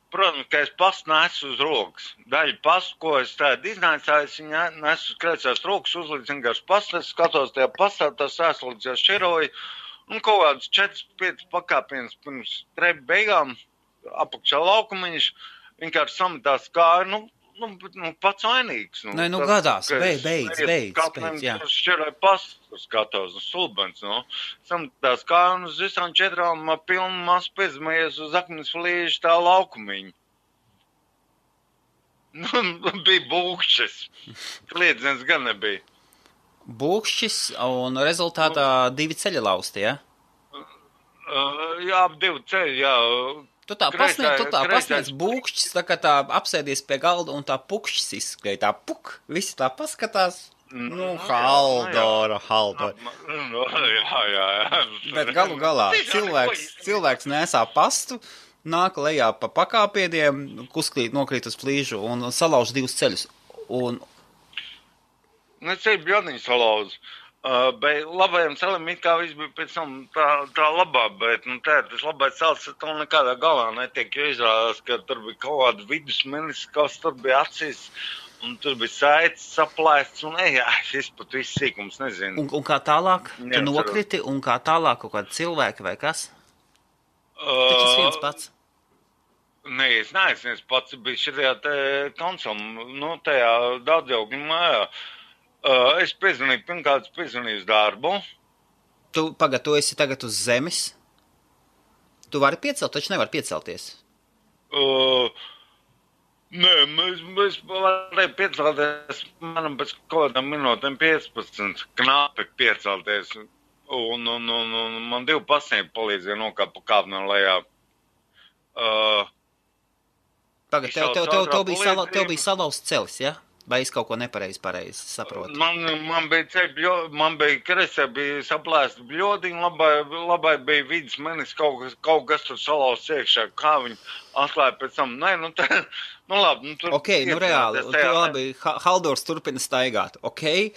Protams, ka es pastu nesu uz rokas. Daļu pastu, ko es tādu iznācāju, es viņu nesu uz kreisās rokas, uzlīdz vienkārši pastu, es skatos tajā pastā, tas ēslīdz jau šķiroju, un kaut kāds 4-5 pakāpienas pirms trepu beigām, apakšā laukumiņš, vienkārši sametās kāju, pats vainīgs. Gadās, beidz, jā. Šķiroju pastu, skatos, stulbens, sametās kāju, un uz visām 4 pilnu masu piezmējies uz akmens flīžu tā laukumiņu. Bija būkšķis. Kliedzens gan nebija. Būkšķis, un rezultātā 2 ceļi lausti, ja? Jā, 2 ceļi, jā. Tu tā pasniedz būkšķis, tā kā tā apsēdies pie galda un tā pukšķis izskrēja, tā visi tā paskatās. Haldora. Jā. Bet galu galā cilvēks nesā pastu, nāk lejā pa pakāpieniem, nokrīt uz flīžu un salauž 2 ceļus. Ceļi bjodniņi salauž. Bet labajam celim it kā viss bija pēc tam tā labā, bet tas labais cels to nekādā galā netiek, jo izrādās, ka tur bija kaut kāda vidusmenis, kas tur bija acīs, un tur bija saites saplēsts, un es pat viss sīkums nezinu. Un kā tālāk? Tu nokriti, un kā tālāk kaut kādi cilvēki vai kas? Taču viens pats. Nē, es neesmu, es pats biju šajā konsolā, tajā daudzaugļu mājā. Es pirmkārt piezvanīju uz darbu. Tu esi tagad uz zemes? Tu vari piecelt, taču nevar piecelties. Nē, mēs varējām piecelties, manam pēc kaut kādām minūtēm 15, knapi piecelties. Un man 2 pasniegi palīdzēja nokāpt pa kāpnēm lejā. Pagad, tev bija salauzts celis, ja? Vai es kaut ko pareizi saprotu? Man bija kresē, bija saplēsta bļodiņa, labai bija vidas menis, kaut kas tur salauzts iekšā, kā viņi atklāja pēc tam. Nē, labi. Tur ok, reāli, labi, Haldors turpina staigāt, ok?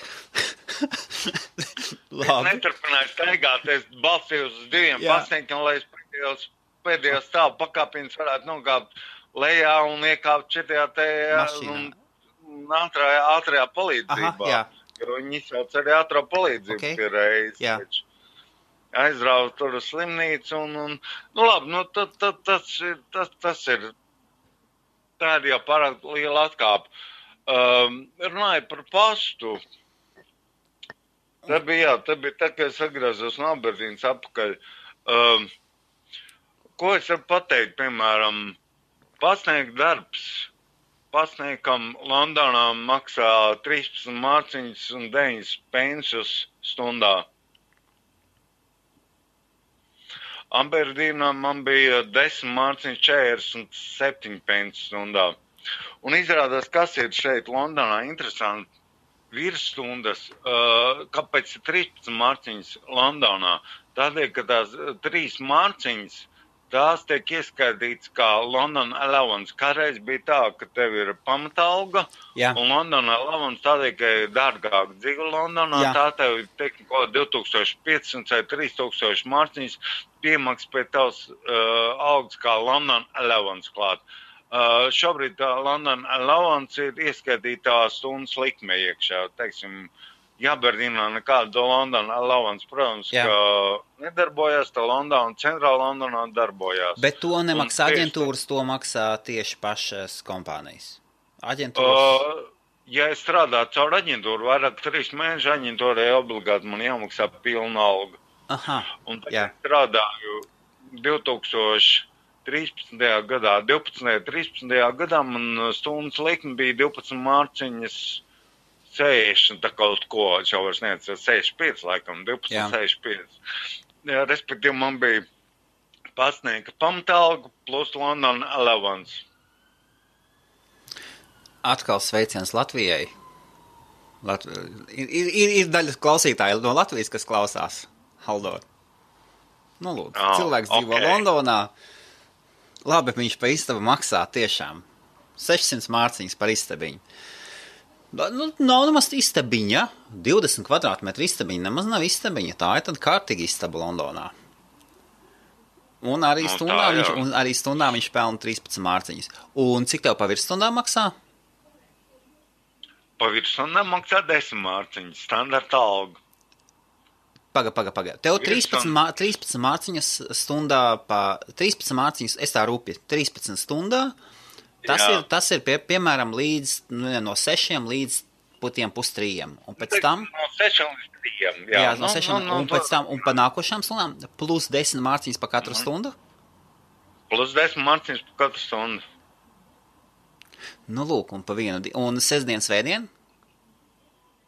Labi. Es neturpināju staigāt, es balstīju uz 2 pasniegiem, lai es pēdējos stāvu pakāpienas varētu nokāpt lejā un iekāpt šitā mašīnā. Ātrajā palīdzībā. Aha, jo viņi sauc arī ātrā palīdzību pie reizes. Aizrauj tur uz slimnīcu un labi, tas ir, tā ir jau pārāk liela atkāpa. Runāju par pastu. Tā bija tā, ka es atgriezos no Aberdīnas atpakaļ. Ko es varu pateikt, piemēram, pasniegt darbs. Pasniegam Londonā maksā 13 mārciņas un 9 pensus stundā. Aberdīnā man bija 10 mārciņas 47 pensus stundā. Un izrādās, kas ir šeit Londonā interesanti, virsstundas, kāpēc ir 13 mārciņas Londonā? Tādēļ, ka tās 3 mārciņas, tās tiek ieskaitīts kā London Allowance. Kādreiz bija tā, ka tev ir pamatalga, un London Allowance tādēļ, ka ir dārgāk dzīve Londonā, tā tev ir teikti kaut 2500 vai 3000 mārciņas piemaks pie tavs algas kā London Allowance klāt. Šobrīd tā London Allowance ir ieskaitītā stundas likme iekšā, teiksim, Aberdīnā nekāda London Allowance, protams, ka nedarbojās, tā Londona, centrāla Londonā darbojās. Bet to nemaksā aģentūras, to maksā tieši pašas kompānijas. Aģentūras? Ja es strādātu caur aģentūru, vairāk 3 mēnešu aģentūrai obligāti man jāmaksā pilna alga. Aha, un tad es strādāju 2013. gadā, 13. gadā man stundas likme bija 12 mārciņas 60, tā kaut ko, jau vairs neatceru, 65 laikam, 12,65. Respektīvi, man bija pasniega pamatalga plus London Allowance. Atkal sveiciens Latvijai. Ir daļa klausītāji no Latvijas, kas klausās, Haldor. Nu, lūdzu, cilvēks dzīvo Londonā. Labi, viņš pa istabu maksā tiešām 600 mārciņas par istabiņu. Nav nemaz istabiņa, 20 kvadrātmetru istabiņa, nemaz nav istabiņa, tā ir tad kārtīgi istaba Londonā. Un arī stundā viņš pelna 13 mārciņas. Un cik tev pa virstundā maksā? Pa virstundā maksā 10 mārciņas, standarta alga. Paga. Tev 13 mārciņas stundā, 13 mārciņas, es tā rūpi, 13 stundā. Tas ir piemēram, no 6 līdz 2:30. Un pēc tam... No 6 līdz 3. Jā, no 6. Un pēc tam, un pa nākošām stundām, plus 10 mārciņas pa katru stundu? Plus 10 mārciņas pa katru stundu. Nu, lūk, un pa vienu... Un sestdien, svētdien?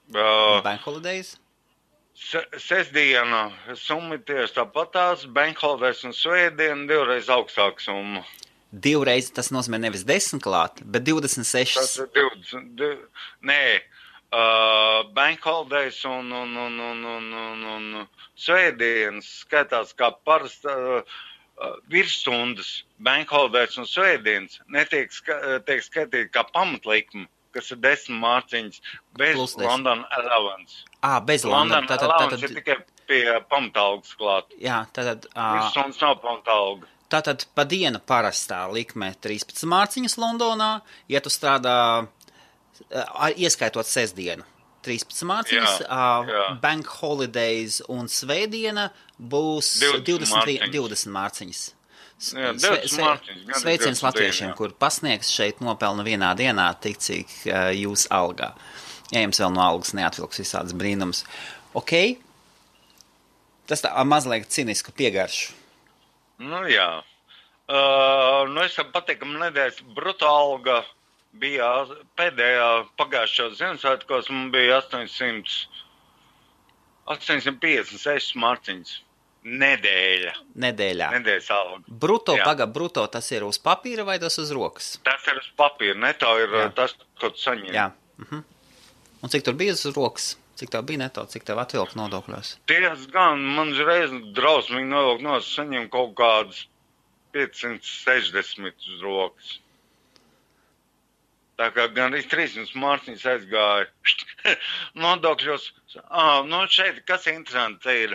Bank holidays? Sestdiena summa tieši tāpatās, bank holidays un svētdien 2 reiz augstāk summa. 2 reizi tas nozīmē nevis 10 klāt, bet 26. Tas ir 20. Nē, bank holidays un svētdienas skaitās kā parasta virsstundas. Bank holidays un svētdienas netiek skaitīt kā pamatlikme, kas ir 10 mārciņas bez London Allowance. Bez London. Allowance ir tikai pie pamatalgas klāt. Jā, tātad... Virsstundas nav pamatalga. Tātad pa dienu parastā likme 13 mārciņas Londonā, ja tu strādā, ieskaitot sestdienu, 13 mārciņas, bank holidays un svētdiena būs 20 mārciņas. Sveiciens latviešiem, kur pasniegs šeit nopelna vienā dienā tik, cik jūs algā. Ja jums vēl no algas neatvilks visādas brīnums. Ok? Tas tā mazliet cinisku piegaršu. Nu jā. Es patīkam nedēļas bruto alga bija pēdējā pagājušajā Ziemassvētkos, man bija 856 marciņas. Nedēļā. Nedēļas alga. Bruto tas ir uz papīra vai tas uz rokas? Tas ir uz papīra, neto ir tas, ko tu saņem. Jā. Un cik tur bija uz rokas? Cik tev bija neto? Cik tev atvilk nodokļos? Ties gan, man reiz drausmīgi nodokļ nos, saņem kaut kādus 560 uz rokas. Tā kā gan arī 300 mārciņas aizgāja nodokļos. Šeit, kas interesanti, te ir,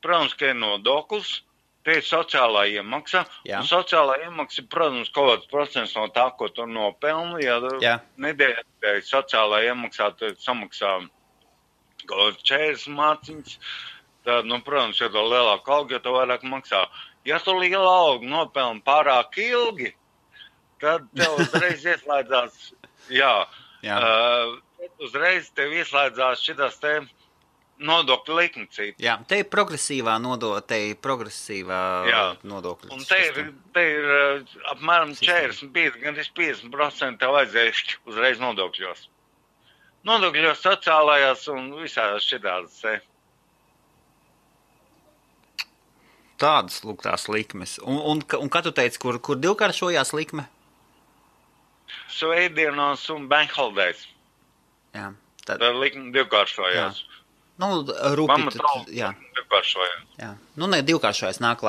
protams, ka ir nodoklis, te ir sociālā iemaksa. Un sociālā iemaksa ir, protams, kaut kāds procents no tā, ko tu nopelni. Ja nedēļā sociālā iemaksā tu samaksā kaut 40 mārciņas, tad, protams, ja tu lielāku algu, ja tu vairāk maksā. Ja tu lielu algu nopelni pārāk ilgi, tad tev uzreiz ieslēdzās, uzreiz tev ieslēdzās šitās te nodokļu likmecība. Jā, te ir progresīvā nodokļa. Un te ir apmēram 45, gan 50% tev vajadzēs uzreiz nodokļos. Nodokļos sociālajās un visās šitās te. Tādas lūgtās likmes. Un kā tu teici, kur divkāršojās likme? Svētdienos un bank holidays. Jā. Tad likme divkāršojās. Divkāršojās. Jā. Ne divkāršojās, nāk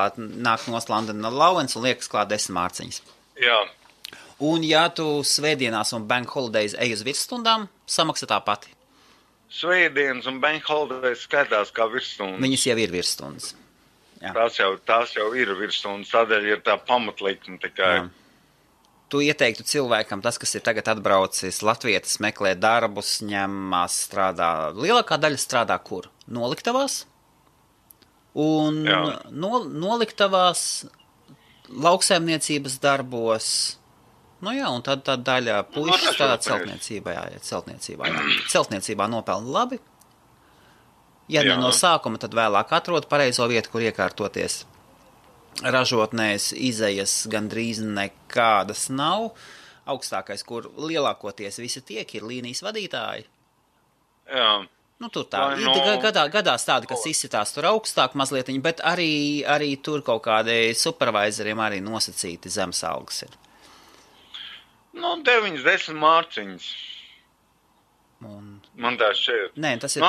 nos London Allowance un liekas klāt 10 mārciņas. Jā. Un ja tu svētdienās un bank holidays ej uz virsstundām, samaksā tā pati? Svētdienas un bank holidays skaitās kā virsstundas. Viņas jau ir virsstundas. Tās jau ir virsstundas, tādēļ ir tā pamatlikme tikai. Jā. Tu ieteiktu cilvēkam, tas, kas ir tagad atbraucis, latvietis meklē darbus, ņemās, strādā. Lielākā daļa strādā kur? Noliktavās? Un noliktavās, lauksaimniecības darbos. Un tad daļa puiši strādā celtniecībā. Celtniecībā nopelna labi. Ja ne no sākuma, tad vēlāk atrod pareizo vietu, kur iekārtoties. Ražotnēs izejas gandrīz nekādas nav. Augstākais, kur lielākoties visi tiek, ir līnijas vadītāji. Jā. Tur tā. Gadās tādi, kas izsitās tur augstāk mazliet, bet arī tur kaut kādi supervisoriem arī nosacīti zemes algas ir. 9-10 mārciņas. Man tā šeit. Nē, tas ir,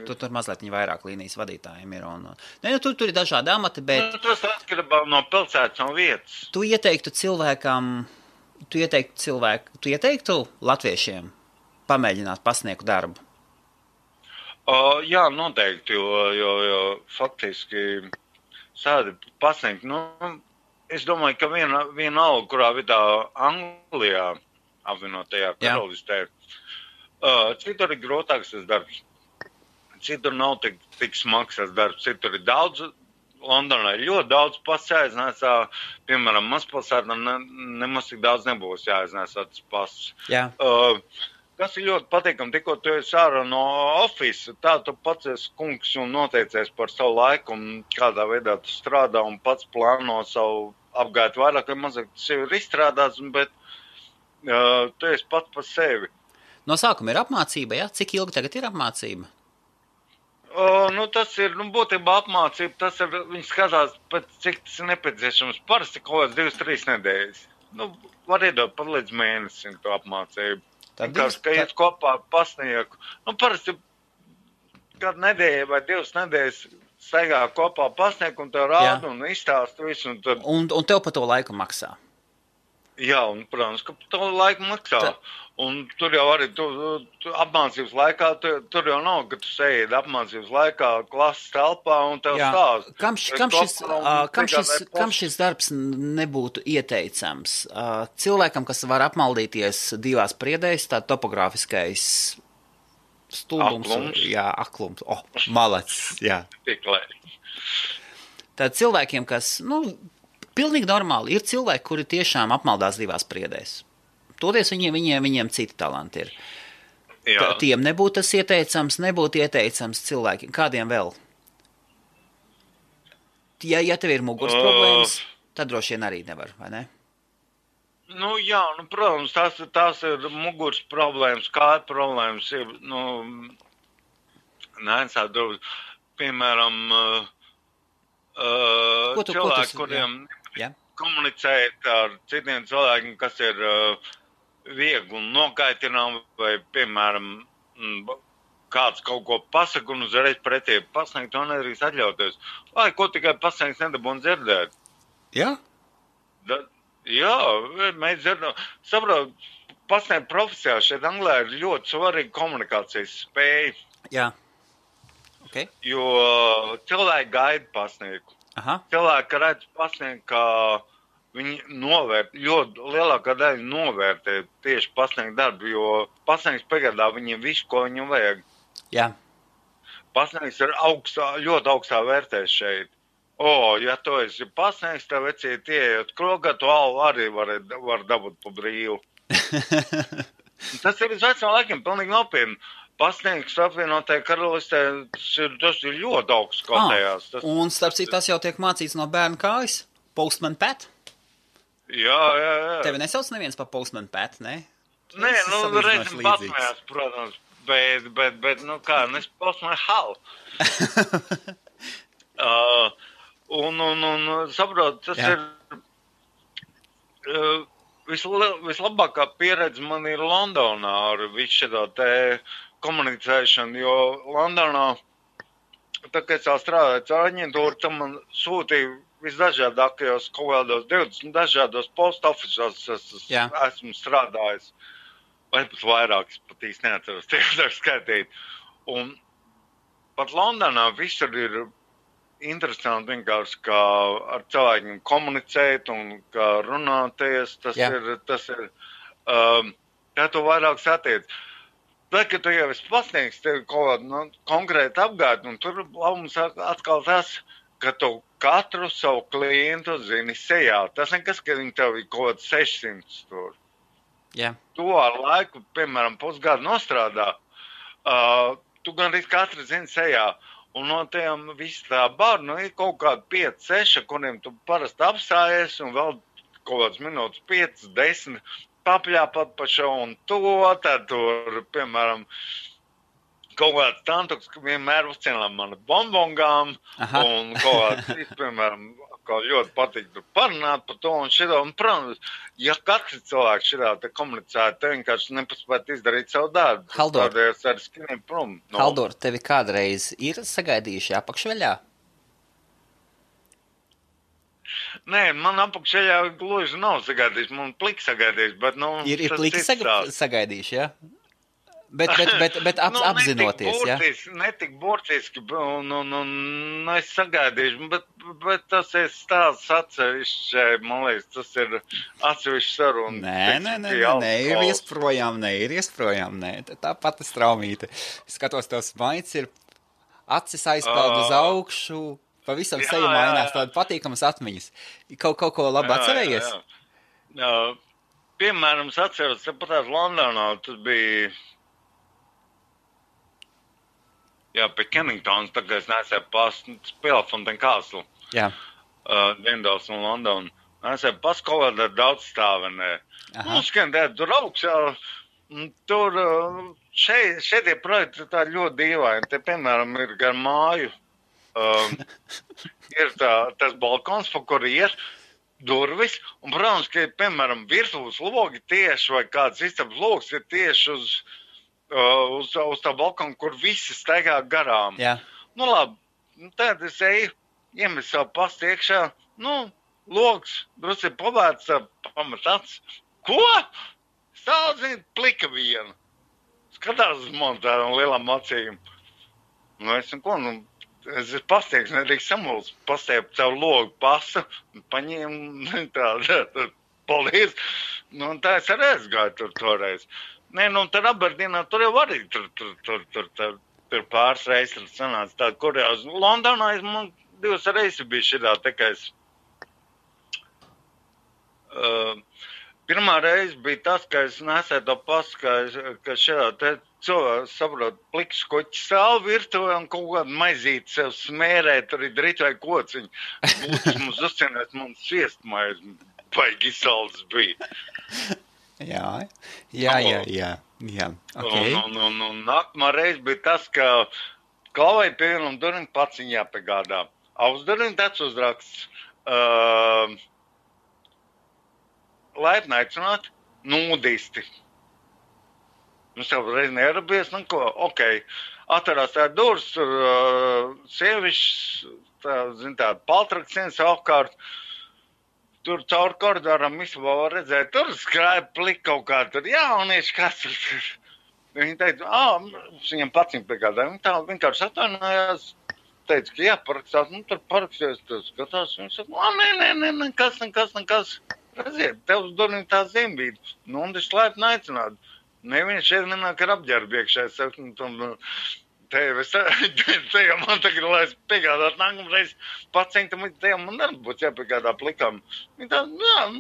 tur mazliet vairāk līnijas vadītājiem ir. Tur ir dažādi amati, bet... Tas atkarībā no pilsētas un vietas. Tu ieteiktu latviešiem pamēģināt pasniegt darbu? Jā, noteikti, jo faktiski sādi pasniegt, es domāju, ka viena alga, kurā vietā Anglijā apvienotajā karalistē, citur ir grūtāks tas darbs. Citur nav tik smags tas darbs. Citur ir daudz, Londonā ir ļoti daudz pasis jāiznēsā. Piemēram, mazpilsētā nemaz tik daudz nebūs jāiznēsā tas pasis. Jā. Kas ir ļoti patīkami, tikko tu esi ārā no ofisa, tā tu pats esi kungs un noteicies par savu laiku un kādā veidā tu strādā un pats plāno savu apgājumu vairāk vai mazāk. Tas jau ir izstrādāts, bet tu esi pats par sevi. No sākuma ir apmācība, ja? Cik ilgi tagad ir apmācība? Tas ir, būtībā apmācība, tas ir, viņi skatās, cik tas ir nepieciešams. Parasti kaut kāds 2-3 nedēļas. Var iedot pat līdz mēnesim to apmācību. Ka iet kopā pasnieku. Parasti kādu nedēļu vai 2 nedēļas staigā kopā pasnieku un tev rāda un izstāst visu. Un tev pa to laiku maksā? Jā, un, protams, ka to laiku maksā. Un tur jau arī apmācības laikā, tur jau nav, ka tu sēdi apmācības laikā klases telpā un tev stāst. Kam šis darbs nebūtu ieteicams? Cilvēkam, kas var apmaldīties 2 priedēs, tā topogrāfiskais stulbums. Aklums. Jā, aklums. Malacis, jā. Tiklēt. Tad cilvēkiem, kas, Pilnīgi normāli. Ir cilvēki, kuri tiešām apmaldās divās priedēs. Toties viņiem citi talanti ir. Tiem nebūtu tas ieteicams, nebūtu ieteicams cilvēkiem. Kādiem vēl? Ja tev ir muguras problēmas, tad droši vien arī nevar, vai ne? Nu, jā, protams, tās ir muguras problēmas, kāja problēmas. Piemēram, cilvēki, kuriem komunicēt ar citiem cilvēkiem, kas ir viegli un nokaitinām, vai, piemēram, kāds kaut ko pasaka un uzreiz pretī pasniegt, to nedrīkst atļauties. Vai ko tikai pasniegt nedabūn dzirdēt? Jā? Jā, mēs dzirdam. Saprot, pasniegt profesijā šeit Anglē ir ļoti svarīga komunikācijas spēja. Jā. Okay. Jo cilvēki gaida pasniegt. Aha. Cilvēki redz pasniegt, ka viņi ļoti lielākā daļa novērtē tieši pasniegt darbu, jo pasniegts piegādā viņiem visu, ko viņam vajag. Jā. Pasniegts ir ļoti augstā vērtēs šeit. Ja tu esi pasniegts, tev vecīt ieiet krogā, tu arī var dabūt pa brīvu. Tas ir uz vecām laikiem pilnīgi nopietni. Pasniegts apvienotajā karalistē, tas ir ļoti augsts kotējās. Un starp citu, tas jau tiek mācīts no bērna kājas? Postman Pat? Jā. Tevi nesauc neviens pa Postman Pat, ne? Nē, reizim pasmējās, protams, bet nes Postman Hal. Saprot, tas ir vislabākā pieredze man ir Londonā ar visu šo te komunicēšanu, jo Londonā, tā kā es strādāju caur aģentūru, tam man sūtīja visdažādākajos kaut kādos 20 dažādos post officeos esmu strādājis. Vai pat vairāk, es pat īsti neatceros, tiek skaitīt. Un pat Londonā visur ir interesanti vienkārši, kā ar cilvēkiem komunicēt un kā runāties. Tas ir kā tu vairāk satiec. Tad, kad tu jau esi pasniegts, tev kaut kādu konkrētu apgādi, un tur labums atkal tas, ka tu katru savu klientu zini sejā. Tas nekas, ka viņi tev ir kaut kāds 600 tur. Yeah. Tu ar laiku, piemēram, pusgadu nostrādā, tu gan arī katru zini sejā. Un no tiem visi tā barnu ir kaut kādi 5-6, kuriem tu parasti apstājies, un vēl kaut kāds minūtes 5-10 papļāpat pa šo un to, tad tur, piemēram, kaut kāds tantuks, ka vienmēr uzcienām mani bonbongām, un kaut kāds, piemēram, kā ļoti patīk tur parunāt par to un šito, un, protams, ja katrs cilvēks šitā te komunicētu, te vienkārši nepaspētu izdarīt savu darbu. Haldor, tādēļ arī skiniem prom. Haldor, tevi kādreiz ir sagaidījuši apakšveļā? Nē, man apakšveļā gluži nav sagaidījuši, man pliki sagaidījuši, bet, Ir pliki sagaidījuši, ja? Bet apzinoties, ja? Netik burtiski, un es sagaidīšu, bet tas ir stāsts atsevišķi, man liekas, tas ir atsevišķi saruna. Nē, ir iesprojām, tā pati straumīte. Skatos, tavs maids ir acis aizpeld uz augšu, pavisam seja mainās, tāda patīkamas atmiņas. Kaut ko labi atcerējies? Jā. Piemēram, es atceros, patās Londonā, tas bija... Jā, pie Kenningtons, tagad es nesēju Pelafontaine Castle. Jā. Dienvidās un London. Nesēju kaut kādā daudz stāvenē. Tur augšā, tur šeit tie projekti tā ļoti dīvaini. Te, piemēram, ir gar māju. Ir tas balkons, pa kur iet durvis. Un, protams, ka, piemēram, virtuves logi tieši vai kāds istabas logs ir tieši uz tā balkonu, kur visi staigā garām. Jā. Labi, tad es eju, iemet savu pastu iekšā, logs, drusku ir pavērts, pamat acis. Ko? Stāv, plika viena. Skatās uz mani tādām lielām acīm. Es esmu pastieks, nedrīkst samulst, pastiept savu logu pasu, paņēmu tādu, paldies. Tā es arī gāju tur toreiz. Nē, tad Aberdīnā tur jau arī tur pāris reizes sanāca tāda, kur jau Londonā man 2 reizes bija šitā, tā kā es Pirmā reize bija tas, ka es nesēju to pasu, ka šādā te cilvēku saprot pliks koķi sāli virtuvē un kaut kādu maizīti sev smērē, tur ir drīt vai kociņi. Būtis mums uzcienēs, mums sviestmaiz, baigi salds bija. Jā. Okay. Un nākamā reize bija tas, ka klavai pie vienam durvim pats viņa jāpiegādā. Uz durvim tāds uzraksts. Laipni aicināt, nudisti. Mums jau reiz nearabies, atverās tā durvis, tur sievišķis, tāda paltraksienas apkārt, tur caur koridoram visabā var redzēt, tur skrāja plika kaut kā, tur jaunieši, kas tur. Viņi teica, viņam pats viņa piegādāja, viņi tā vienkārši atvainājās, teica, ka jāparakstās, tur parakstījās, tur skatās, viņi saka, nekas. Redziet, tev uz durvīm tā zimbīta, un es laipni aicinātu. Neviens šeit nenāk ar apģērbu iekšā, es saku, te jau man tagad, lai es piegādātu nākamreiz pacientam, te jau man arī būtu jāpiegādā plikam. Viņi tā,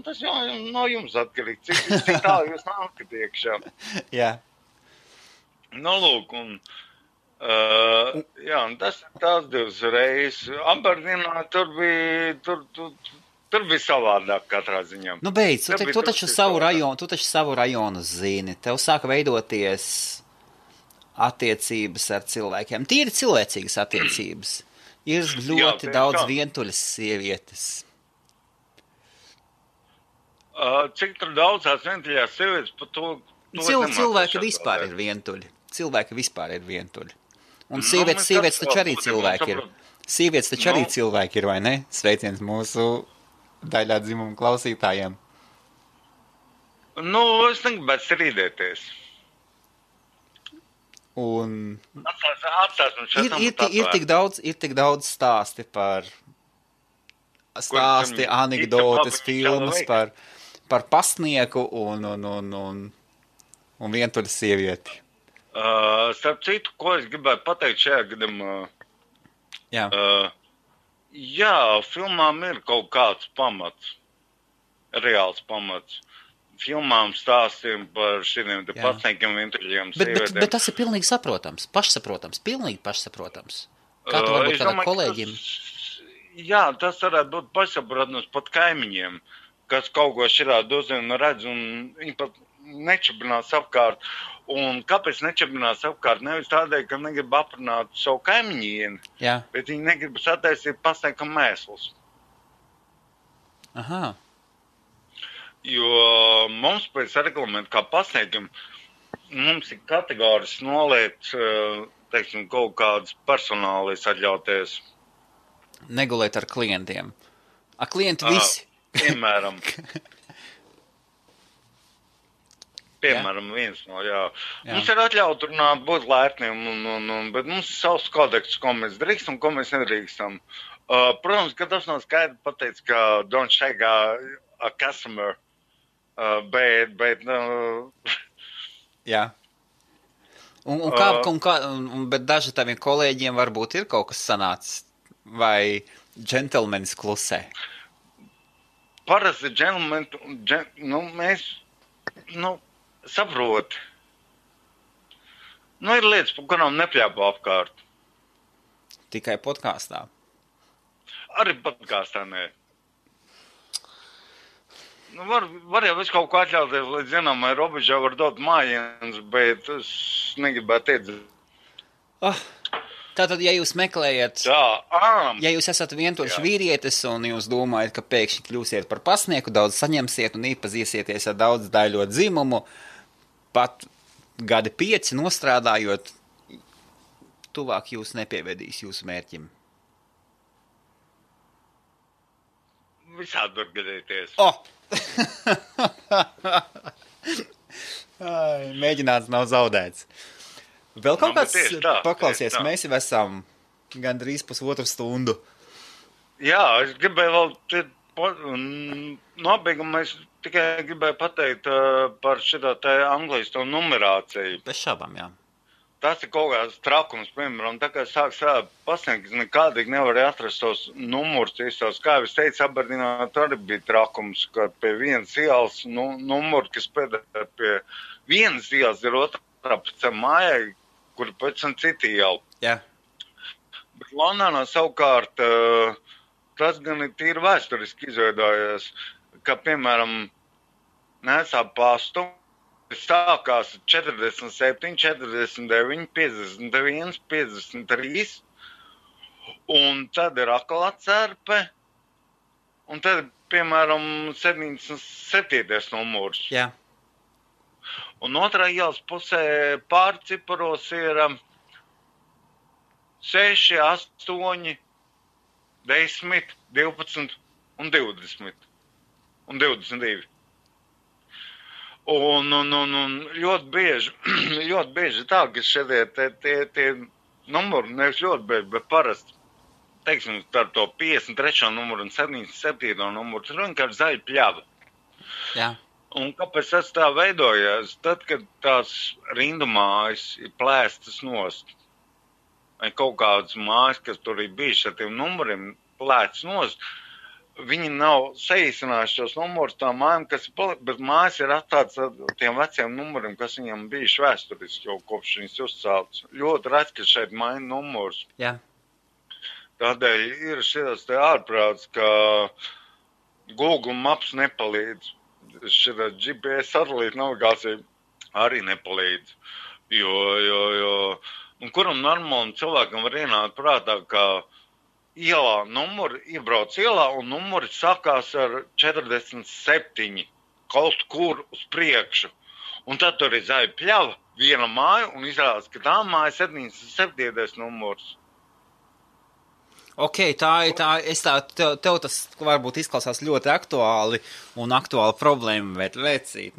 tas jau no jums atkarīgi, cik tālu jūs nākat iekšā. Jā. Lūk, un tās divas reizes. Aberdeenā tur bija savādāk katrā ziņā. Beidz, tu taču savu rajonu zini. Tev sāka veidoties attiecības ar cilvēkiem. Tīri cilvēcīgas attiecības. Ir ļoti daudz vientuļas sievietes. Cik tur daudz tās vientuļās sievietes par to... Cilvēki vispār ir vientuļi. Un sievietes taču arī cilvēki ir. Sievietes taču arī cilvēki ir, vai ne? Sveiciens mūsu daļā dzimuma klausītājiem. Es negribētu strīdēties. Un ir tik daudz stāsti, anekdotes, filmas par pasnieku un vientuļu sievieti. Starp citu, ko es gribētu pateikt šajā gadījumā? Jā. Jā, filmām ir kaut kāds pamats, reāls pamats. Filmām stāstiem par šiem pasniekiem, vientuļiem sievietēm. Bet tas ir pilnīgi saprotams, pilnīgi pašsaprotams. Kā tu varbūt kādam kolēģim? Jā, tas varētu būt pašsaprotams pat kaimiņiem, kas kaut ko širādi uzzina un redz, un viņi pat nečabinās apkārt. Un kāpēc nečabinās apkārt? Nevis tādēļ, ka negrib aprunāt savu kaimiņieni, bet viņi negrib sataisīt pasniekam mēslus. Aha. Jo mums pēc reglamenta kā pasniekam, mums ir kategoris noliet, teiksim, kaut kādas personālijas atļauties. Negulēt ar klientiem. Klienti visi. Piemēram, viens no, Mums ir atļauts runāt, būt laipniem, bet mums ir savs kodeks, ko mēs drīkstam un ko mēs nedrīkstam. Protams, ka tas nav skaidri pateicis, ka don't shake a customer, bet Jā. Bet daži taviem kolēģiem varbūt ir kaut kas sanācis, vai džentelmenis klusē? Parasti mēs, saproti. Ir lietas, par kurām nepļāpo apkārt. Tikai podkāstā? Arī podkāstā, nē. Var jau visu kaut ko atļauties, līdz zināmai robežai var dot mājienas, bet es negribētu iedzīt. Tātad, ja jūs meklējat, ja jūs esat vientuļš vīrietis un jūs domājat, ka pēkšņi kļūsiet par pasnieku, daudz saņemsiet un iepazīsieties ar daudz daļo dzimumu, pat gadi 5 nostrādājot, tuvāk jūs nepievedīs jūsu mērķim. Visādi var gadīties. Mēģināts nav zaudēts. Vēl kaut kāds paklausies, mēs jau esam gandrīz 1,5 stundu. Jā, es gribēju vēl nobeigumā, es tikai gribēju pateikt par šitā te Anglijas to numerāciju. Bez šaubām, jā. tas ir kaut kāds trakums, piemēram, tā kā sāk strādāt pasniegt, nekādīgi nevarēja atrast tos numurus īstos. Kā jau es teicu, Aberdīnā arī bija trakums, ka pie vienas ielas numuru, kas pēdējā pie vienas ielas ir otrā pēc mājai, kur pēc tam citi iela. Jā. Bet Londonā savukārt tas gan ir tīri vēsturiski izveidojies, ka, piemēram, nesā pastu, sākās 47, 49, 51, 53, un tad ir atkal atcerpe, un tad, piemēram, 77. numurs. Jā. Un otrā ielas pusē pārciparos ir 6, 8, 10, 12 un 20 un 22. Un ļoti bieži tā, ka šie tie numuri, nevis ļoti bieži, bet parasti, teiksim, ar to 53. numuru un 77. numuru, tur vienkārši zaļa pļava. Jā. Un kāpēc tas tā veidojas? Tad, kad tās rindu mājas ir plēstas nost, vai kaut kādas mājas, kas tur ir bijušas ar tiem numuriem plēstas nost, viņi nav saīsinājuši tos numurus tām mājām, bet mājas ir atstātas ar tiem veciem numuriem, kas viņam bijuši vēsturiski jau kopš viņas uzceltas. Ļoti redz, ka šeit maina numurs. Jā. Tādēļ ir šis te ārprāts, ka Google Maps nepalīdz. Šī GPS satelīta navigācija arī nepalīdz. Jo kuram normālam cilvēkam var ienākt prātā, ka ielā numuri, iebrauc ielā un numuri sākās ar 47 kaut kur uz priekšu. Un tad tur ir zaļa pļava, viena māja un izrādās, ka tā māja 77. numurs. Ok, tev tas varbūt izklausās ļoti aktuāli un aktuāla problēma, bet vecīt,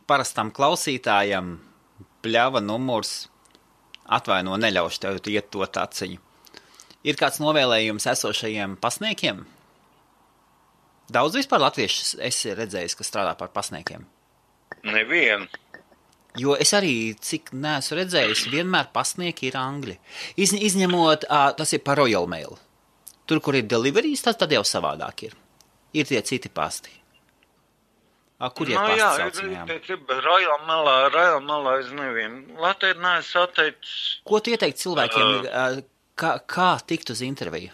parastam klausītājam pļava numurs atvaino neļaušu tev iet to taciņu. Ir kāds novēlējums esošajiem pasniekiem? Daudz vispār latviešu esi redzējis, kas strādā par pasniekiem? Nevienu. Jo es arī, cik neesmu redzējis, vienmēr pasnieki ir angļi. Izņemot, tas ir par Royal Mail. Tur, kur ir deliveries, tad jau savādāk ir. Ir tie citi pasti. Kur ir pasti saucamajām? Jā, Royal Mailā es nevienu. Latvijā neesmu atteicis. Ko tu ieteikt cilvēkiem, kā tikt uz interviju?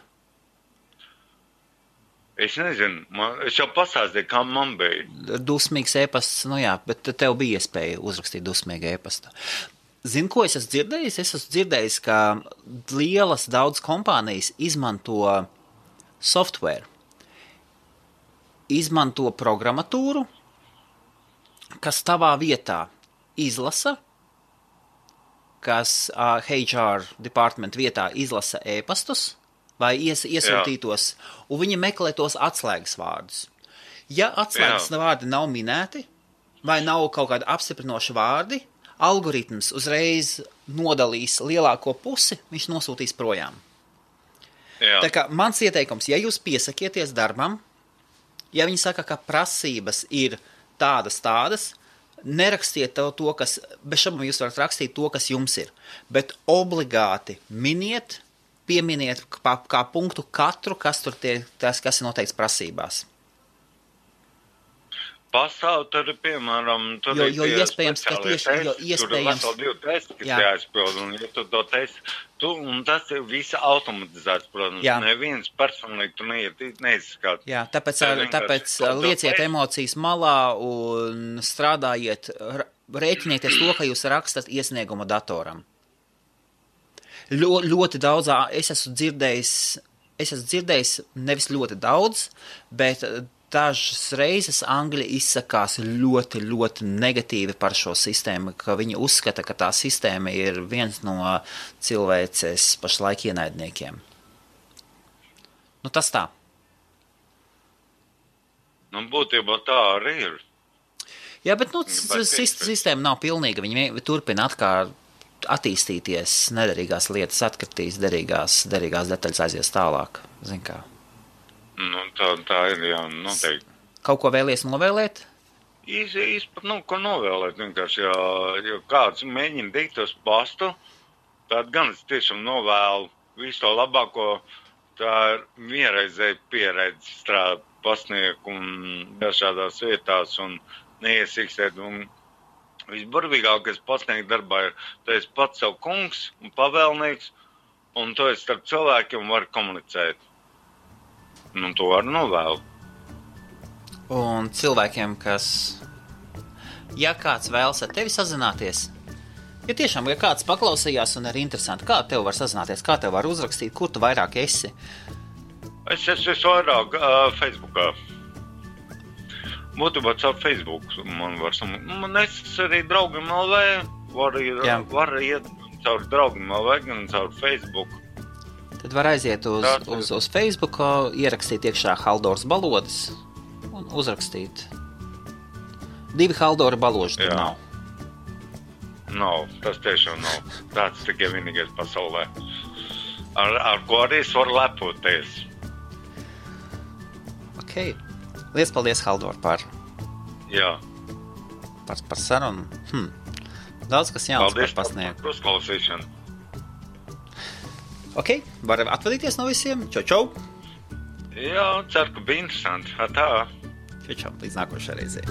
Es nezinu, es jau pastāstīju, kā man bija. Dusmīgs e-pasts, bet tev bija iespēja uzrakstīt dusmīgu e-pastu. Zini, ko es esmu dzirdējis? Es esmu dzirdējis, ka lielas daudz kompānijas izmanto software, izmanto programmatūru, kas tavā vietā izlasa, kas HR department vietā izlasa e-pastus vai iesūtītos, un viņi meklē tos atslēgas vārdus. Ja atslēgas vārdi nav minēti, vai nav kaut kādi apstiprinoši vārdi, algoritms uzreiz nodalīs lielāko pusi, viņš nosūtīs projām. Jā. Tā kā mans ieteikums, ja jūs piesakieties darbam, ja viņi saka, ka prasības ir tādas, nerakstiet to, kas, bez šaubām jūs varat rakstīt to, kas jums ir, bet obligāti pieminiet kā punktu katru, kas tur kas ir noteikts prasībās. Pastāv tur, piemēram, jo iespējams, ka tieši, tur ir veseli 2 testi, kas jāizpild, un ja tu to testi, un tas ir visa automatizēts, protams, neviens personīgi tu neizskāt. Jā, tāpēc lieciet emocijas malā un strādājiet, rēķinieties to, ka jūs rakstat iesniegumu datoram. Ļoti daudz, es esmu dzirdējis nevis ļoti daudz, bet dažas reizes angļi izsakās ļoti, ļoti negatīvi par šo sistēmu, ka viņi uzskata, ka tā sistēma ir viens no cilvēces pašlaik ienaidniekiem. Tas tā. Būtībā tā arī ir. Jā, bet sistēma nav pilnīga. Viņi turpina attīstīties, nederīgās lietas atkritīs, derīgās detaļas aizies tālāk. Zin kā. Tā ir, jā, noteikti. Kaut ko vēlies novēlēt? Īsti pat nav ko novēlēt vienkārši, jo kāds mēģina dīt tos pastu, tad gan es tiešām novēlu visu to labāko, tā ir vienreizēji pieredze strādāt pasnieku un dažādās vietās un neiesīkstēt. Un visburvīgākais pasnieku darbā ir, tu esi pats savu kungs un pavēlnieks, un tu esi starp cilvēkiem var komunicēt. Un to var novēlu. Un cilvēkiem, kas, ja kāds vēlas ar tevi sazināties, ja tiešām, ja kāds paklausījās un ir interesanti, kā tev var sazināties, kā tev var uzrakstīt, kur tu vairāk esi? Es esmu vairāk Facebookā. Būtībā caur Facebook man var man es arī draugiem LV, var iet caur draugiem LV, gan caur Facebook. Tad var aiziet uz Facebook, ierakstīt iekšā Haldors Balodis un uzrakstīt. 2 Haldora baloži tur nav. Nav, tas tiešām nav. Tāds tikai vienīgais pasaulē. Ar ko arī es varu lepoties. Ok. Liels paldies, Haldor, par sarunu. Daudz kas jauns par pasniegu. Paldies par uzklausīšanu. Ok, var atvadīties no visiem. Čau! Jā, ceru, ka bija interesanti. Tā. Čau, līdz nākošai reizei.